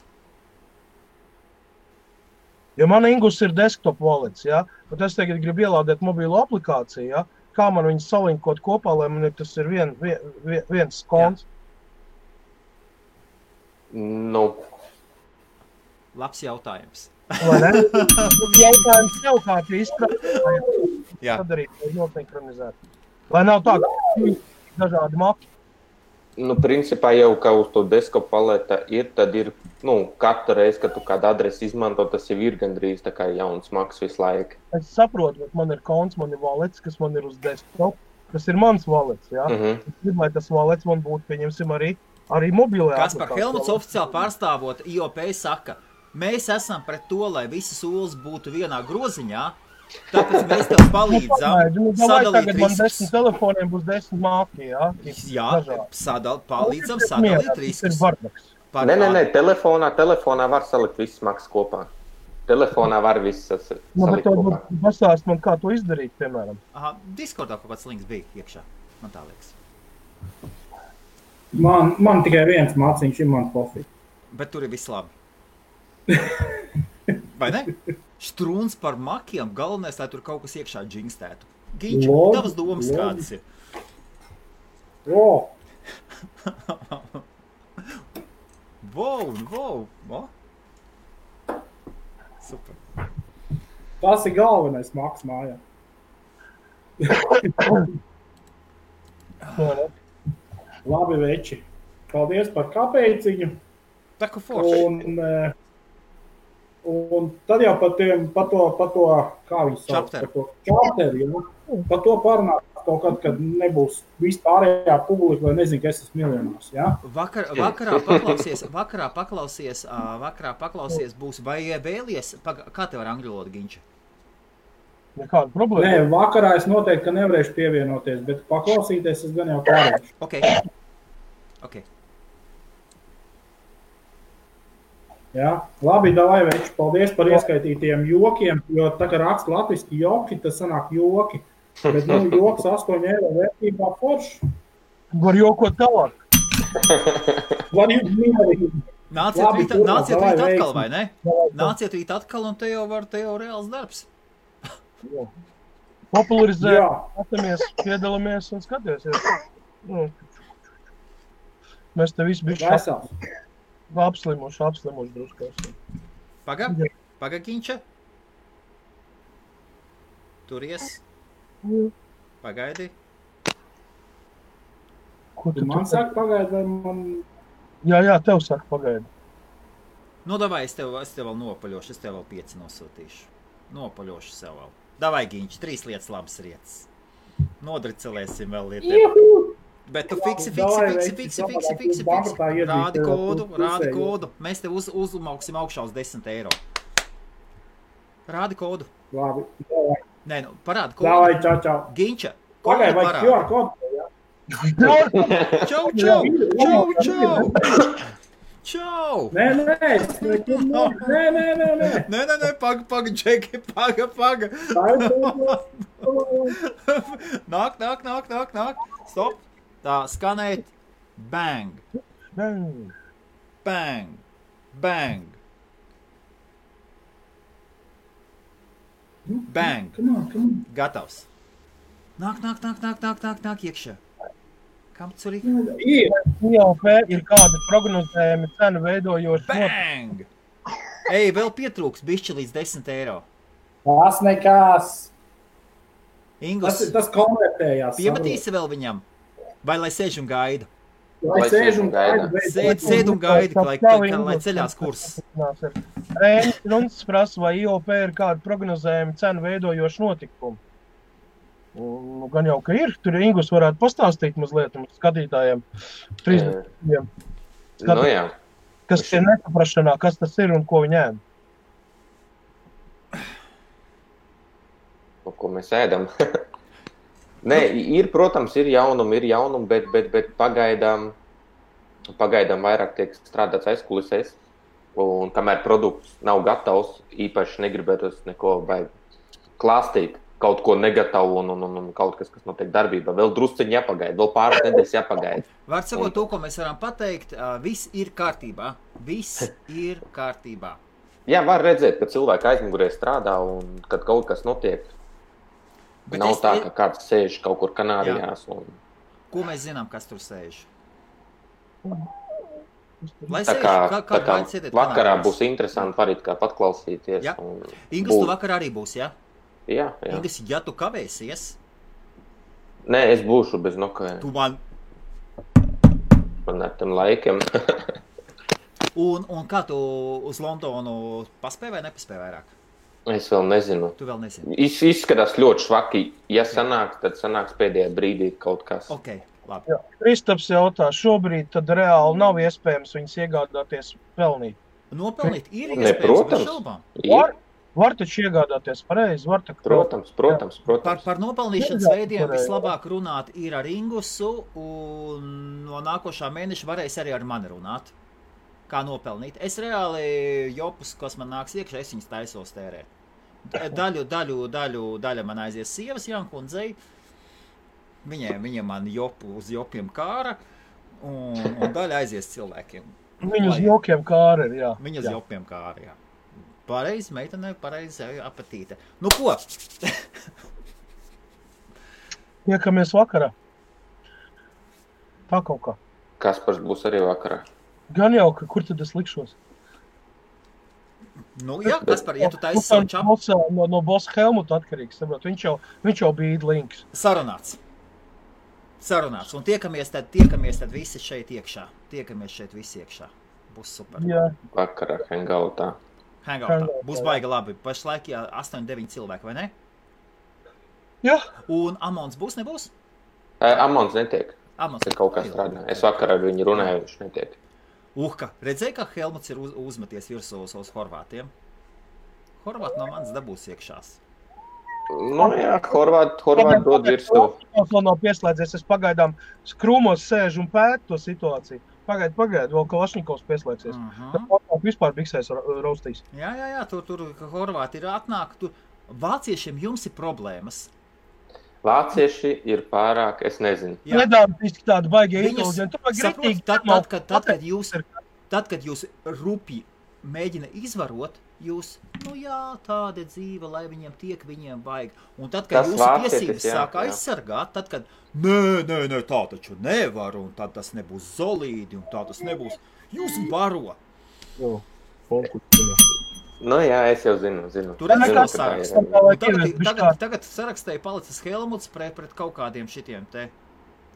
Speaker 1: Jo man Ingus ir desktop wallets, ja? Bet es tagad gribu ielādēt mobilo aplikāciju, ja? Kā man viņus salinkot kopā, lai man tas ir viens konts?
Speaker 7: Nu.
Speaker 2: Labs jautājums.
Speaker 1: Vai ne? Jautājums tev kā izpratīt, sadarīt, lai nosinhronizēt. Lai nav tā, ka dažādi maki.
Speaker 7: Nu, principā jau, ka uz to desktop paleta ir, tad ir, katru reizi, kad tu kādu adresi izmanto, tas jau ir gandrīz tā kā jauns maks visu laiku.
Speaker 1: Es saprotu, bet man ir konts, man ir wallets, kas man ir uz desktop, kas ir mans wallets, ja? Es gribu, lai tas wallets man būtu, pieņemsim, arī mobilajā aplikācijā.
Speaker 2: Kaspar Helmuts oficiāli pārstāvot IOP saka, mēs esam pret to, lai visas olas būtu vienā groziņā, tāpēc mēs tev palīdzam sadalīt
Speaker 1: riskus. Man 10 telefoniem būs 10 māki, jā?
Speaker 2: Jā, palīdzam sadalīt riskus.
Speaker 7: Nē, telefonā var salikt visas maksas kopā. Telefonā var visas salikt kopā.
Speaker 1: Pastāst man, kā to izdarīt, piemēram.
Speaker 2: Aha, Discordā kaut kāds links bija iekšā, man tā liekas.
Speaker 6: Man tikai viens māciņš ir man profils.
Speaker 2: Bet tur ir viss labi. Vai ne? Strūns par makiem, galvenais, lai tur kaut kas iekšā džingstētu. Ginča, tavas domas kādas ir? Wow. Super.
Speaker 6: Tas ir galvenais maks mājā. Labi, veči. Paldies par kāpēciņu.
Speaker 2: Taku forši.
Speaker 6: Un tad jau par to, kā viņi sauc, par to čarteri, par to parunāt kaut kad, kad nebūs vispārējā publika, vai nezinu, ka es esmu miljonārs, ja?
Speaker 2: Vakarā paklausies būs, vai vēlies, kā tev ar angļu valodu, Ginča?
Speaker 1: Nekāda problēma.
Speaker 6: Nē, vakarā es noteikti, ka nevarēšu pievienoties, bet paklausīties es gan jau pārēšu.
Speaker 2: Ok.
Speaker 6: Jā, labi, davai, veči, paldies par ieskaitītiem jokiem, jo tā kā raksta latviski joki, tas sanāk joki, bet, joks 8 eiro vērtībā forši.
Speaker 1: Var jokot tālāk.
Speaker 6: Var jūs mierīgi.
Speaker 2: Nāciet rīt atkal, vai ne? Nāciet rīt atkal, un te jau reāls darbs.
Speaker 1: Popularizē, atamies, piedalāmies un skaties. Mēs te visi bišķi apslimuši druskās.
Speaker 2: Paga, Ginča. Turies. Pagaidi.
Speaker 6: Ko tu man saka pagaidi, vai man...
Speaker 1: Jā, tev saka pagaidi.
Speaker 2: Nu, davai, es tev vēl nopaļošu, es tev vēl 5 nosūtīšu. Nopaļošu sev vēl. Davai, Ginča, 3 lietas labas rietas. Nodricelēsim vēl lietiem. Bet tu fiksi. Rādi kodu. Mēs tev uzmauksim augšā uz 10 eiro. Rādi kodu.
Speaker 6: Labi.
Speaker 2: Nē, parādi kodu.
Speaker 6: Davai, čau.
Speaker 2: Ginča,
Speaker 6: kodu parādi. QR kodu, jā.
Speaker 2: Čau.
Speaker 6: Nē.
Speaker 2: Nē, paga, Džeki, paga. Nāk. Stop. Tā, skanēt. Bang. Bang.
Speaker 6: Come on.
Speaker 2: Gatavs. Nāk iekšā. Kam tur ir?
Speaker 1: IOP ir kāda prognozējumi cenu veidojoši.
Speaker 2: Bang! Ej, vēl pietrūks bišķi līdz 10 eiro.
Speaker 6: Tas nekās.
Speaker 2: Ingus,
Speaker 6: tas konvertējās.
Speaker 2: Piemetīsi vēl viņam? Vai lai sēž un gaida?
Speaker 6: Lai sēž un gaida.
Speaker 2: Sēd un gaida, lai ceļās kurs.
Speaker 1: Runs prasa, vai IOP ir kāda prognozējumi cenu veidojoši notikumi. Gan jau, ka ir. Tur Ingus varētu pastāstīt mazliet skatītājiem. 30. Kas ir nesaprašanā, kas tas ir un ko viņi ēd?
Speaker 7: Ko mēs ēdam? Nē, protams, ir jaunumi, bet pagaidām vairāk tiek strādāts aizkulisēs. Un kamēr produkts nav gatavs, īpaši negribētos neko klāstīt, kaut ko negatavu un kaut kas notiek darbībā. Vēl drusciņi jāpagaida, vēl pāris nedēļas jāpagaida.
Speaker 2: Var sakot to, ko mēs varam pateikt, viss ir kārtībā. Viss ir kārtībā.
Speaker 7: Jā, var redzēt, ka cilvēki aizmugurē strādā un kad kaut kas notiek. Bet nav tā, ka kāds sēž kaut kur Kanārijās. Un...
Speaker 2: Ko mēs zinām, kas tur sēž?
Speaker 7: Tā kā vakarā būs interesanti parīt kā patklausīties.
Speaker 2: Ja. Ingus, tu vakarā arī būs, ja?
Speaker 7: Jā.
Speaker 2: Ingus, ja tu kavēsies?
Speaker 7: Nē, es būšu bez nokavējuma.
Speaker 2: Tu man...
Speaker 7: Man ar tiem laikiem.
Speaker 2: un kā tu uz Londonu paspēj vai nepaspēj vairāk?
Speaker 7: Es vēl nezinu.
Speaker 2: Tu vēl nezini?
Speaker 7: Izskatās ļoti švaki. Ja sanāks, tad sanāks pēdējā brīdī kaut kas.
Speaker 2: Ok, labi.
Speaker 1: Jā. Kristaps jautā, šobrīd tad reāli nav iespējams viņus iegādāties pelnīt.
Speaker 2: Nopelnīt ir
Speaker 7: Ne,
Speaker 2: iespējams, bez šaubām.
Speaker 1: Var taču iegādāties pareizi.
Speaker 7: Protams.
Speaker 2: Par nopelnīšanas veidiem vislabāk runāt ir ar Ingusu, un no nākošā mēneša varēs arī ar mani runāt. Kā nopelnīt. Es reāli jopus, kas man nāks iekšā, es viņas taisos tērēt. Daļa man aizies sievas Jankundzei. Viņiem man jopu uz jopiem kāra, un daļa aizies cilvēkiem.
Speaker 1: Viņu uz jokiem kāra ir, jā.
Speaker 2: Viņu uz jopiem kāra, jā. Pareizi, meitene, pareizi apetīte. Nu ko?
Speaker 1: Iekamies vakarā. Tā kaut kā.
Speaker 7: Kaspars būs arī vakarā.
Speaker 1: Gan jau, kur tad es likšos?
Speaker 2: Nu, jā, Kaspar, ja tu taisi savu čapu.
Speaker 1: No bossa Helmuta atkarīgs, saprot. Viņš jau bija links.
Speaker 2: Sarunāts. Un tiekamies tad visi šeit iekšā. Būs super.
Speaker 1: Jā.
Speaker 7: Vakarā hangoutā.
Speaker 2: Būs baigi labi. Pašlaik 8-9 cilvēki, vai ne?
Speaker 1: Jā.
Speaker 2: Un Amons būs, nebūs?
Speaker 7: Amons netiek.
Speaker 2: Amons
Speaker 7: ir kaut kā strādā. Es vakarā ar viņu runāju, viņš netiek.
Speaker 2: Redzēji, kā Helmuts ir uzmeties virsū uz horvātiem? Horvāti no manis dabūs iekšās.
Speaker 7: Nu jā, horvāti dod virsū.
Speaker 1: Vēl nav pieslēdzies, es pagaidām skrūmos sēžu un pētu to situāciju. Pagaid, vēl Kalašņikovs pieslēgsies. Tad vispār biksēs raustīs.
Speaker 2: Jā, tur horvāti ir atnāk. Vāciešiem jums ir problēmas.
Speaker 7: Vācieši ir pārāk, es nezinu.
Speaker 1: Nedāmtiski tādi baigie inteliģenti.
Speaker 2: Tad, kad jūs rupi mēģina izvarot, jūs, tāda dzīve, lai viņiem tiek, viņiem vajag. Un tad, kad jūsu tiesības sāk aizsargāt, tad, kad, nē, tā taču nevar, un tad tas nebūs solīdi, un tā tas nebūs, jūs baro.
Speaker 7: Nu jā, es jau zinu.
Speaker 2: Tur redz sarakstu. Tagad sarakstēja palicis Helmuts pret kaut kādiem šitiem te.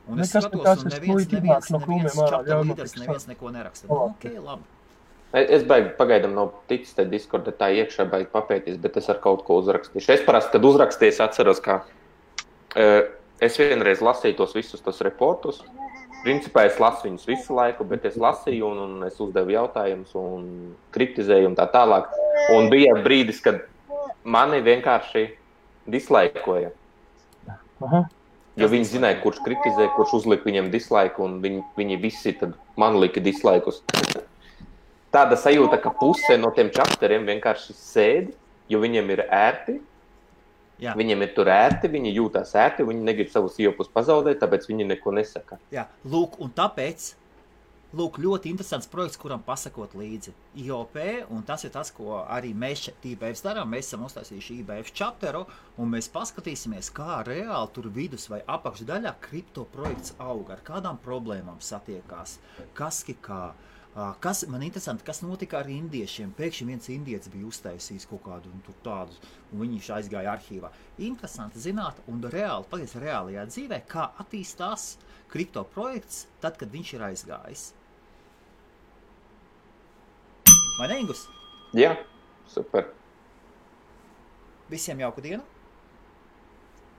Speaker 2: Un es skatos, un neviens čapta līderis, neviens neko neraksta. Ok, labi.
Speaker 7: Es pagaidām nav ticis te Discorda tā iekšā baigi papētīs, bet es ar kaut ko uzrakstīšu. Es parasti, kad uzrakstīju, atceros, kā es vienreiz lasīju tos visus tos reportus. Principā es lasu viņus visu laiku, bet es lasīju un es uzdevu jautājumus un kritizēju un tā tālāk. Un bija brīdis, kad mani vienkārši dislaikoja. Jo viņi zināja, kurš kritizē, kurš uzlika viņiem dislaiku, un viņi visi tad man lika dislaikus. Tāda sajūta, ka puse no tiem čapteriem vienkārši sēdi, jo viņiem ir ērti. Jā. Viņiem ir tur ērti, viņi jūtās ērti, viņi negrib savus iepus pazaudēt, tāpēc viņi neko nesaka.
Speaker 2: Jā, un tāpēc, ļoti interesants projekts, kuram pasakot līdzi. IOP, un tas ir tas, ko arī mēs šeit IBF darām. Mēs esam uztaisījuši IBF chapteru, un mēs paskatīsimies, kā reāli tur vidus vai apakšdaļā kripto projekts aug, ar kādām problēmām satiekās, kas man interesanti, kas notika ar indiešiem. Pēkšņi viens indietis bija uztaisījis kaut kādu un tur tādus, un viņš aizgāja arhīvā. Interesanti zināt un reālajā dzīvē, kā attīstās kripto projekts tad, kad viņš ir aizgājis. Vai ne, Ingus?
Speaker 7: Jā, super.
Speaker 2: Visiem jauku dienu?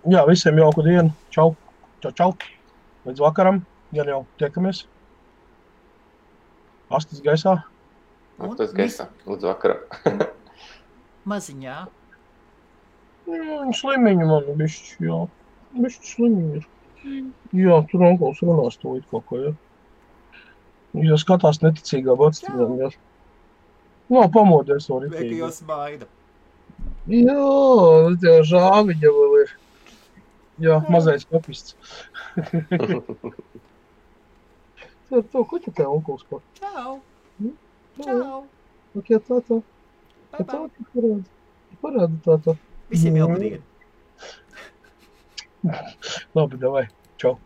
Speaker 1: Jā, visiem jauku dienu. Čau. Līdz vakaram, ja jau tiekamies. Astis gaisā.
Speaker 7: Tas gaisā, līdz vakarā.
Speaker 2: Maziņā.
Speaker 1: Slimiņi man bišķi, jā. Bišķi slimiņi ir. Jā, tur onkuls runās to it kaut ko, jā. Ja skatās neticīgā batstīnām, jā. Nav pamodies no
Speaker 2: Lieka
Speaker 1: ritīgi.
Speaker 2: jau smaida.
Speaker 1: Jā, tie žāviņa vēl ir. Jā, mazais papists. To, ko tu tev onkuls par?
Speaker 2: Čau!
Speaker 1: Čau!
Speaker 2: Čau!
Speaker 1: Ok, tā.
Speaker 2: Bye
Speaker 1: Tā
Speaker 2: bye!
Speaker 1: parāda tā.
Speaker 2: Visiem jauka diena!
Speaker 1: Labi, davai. Čau.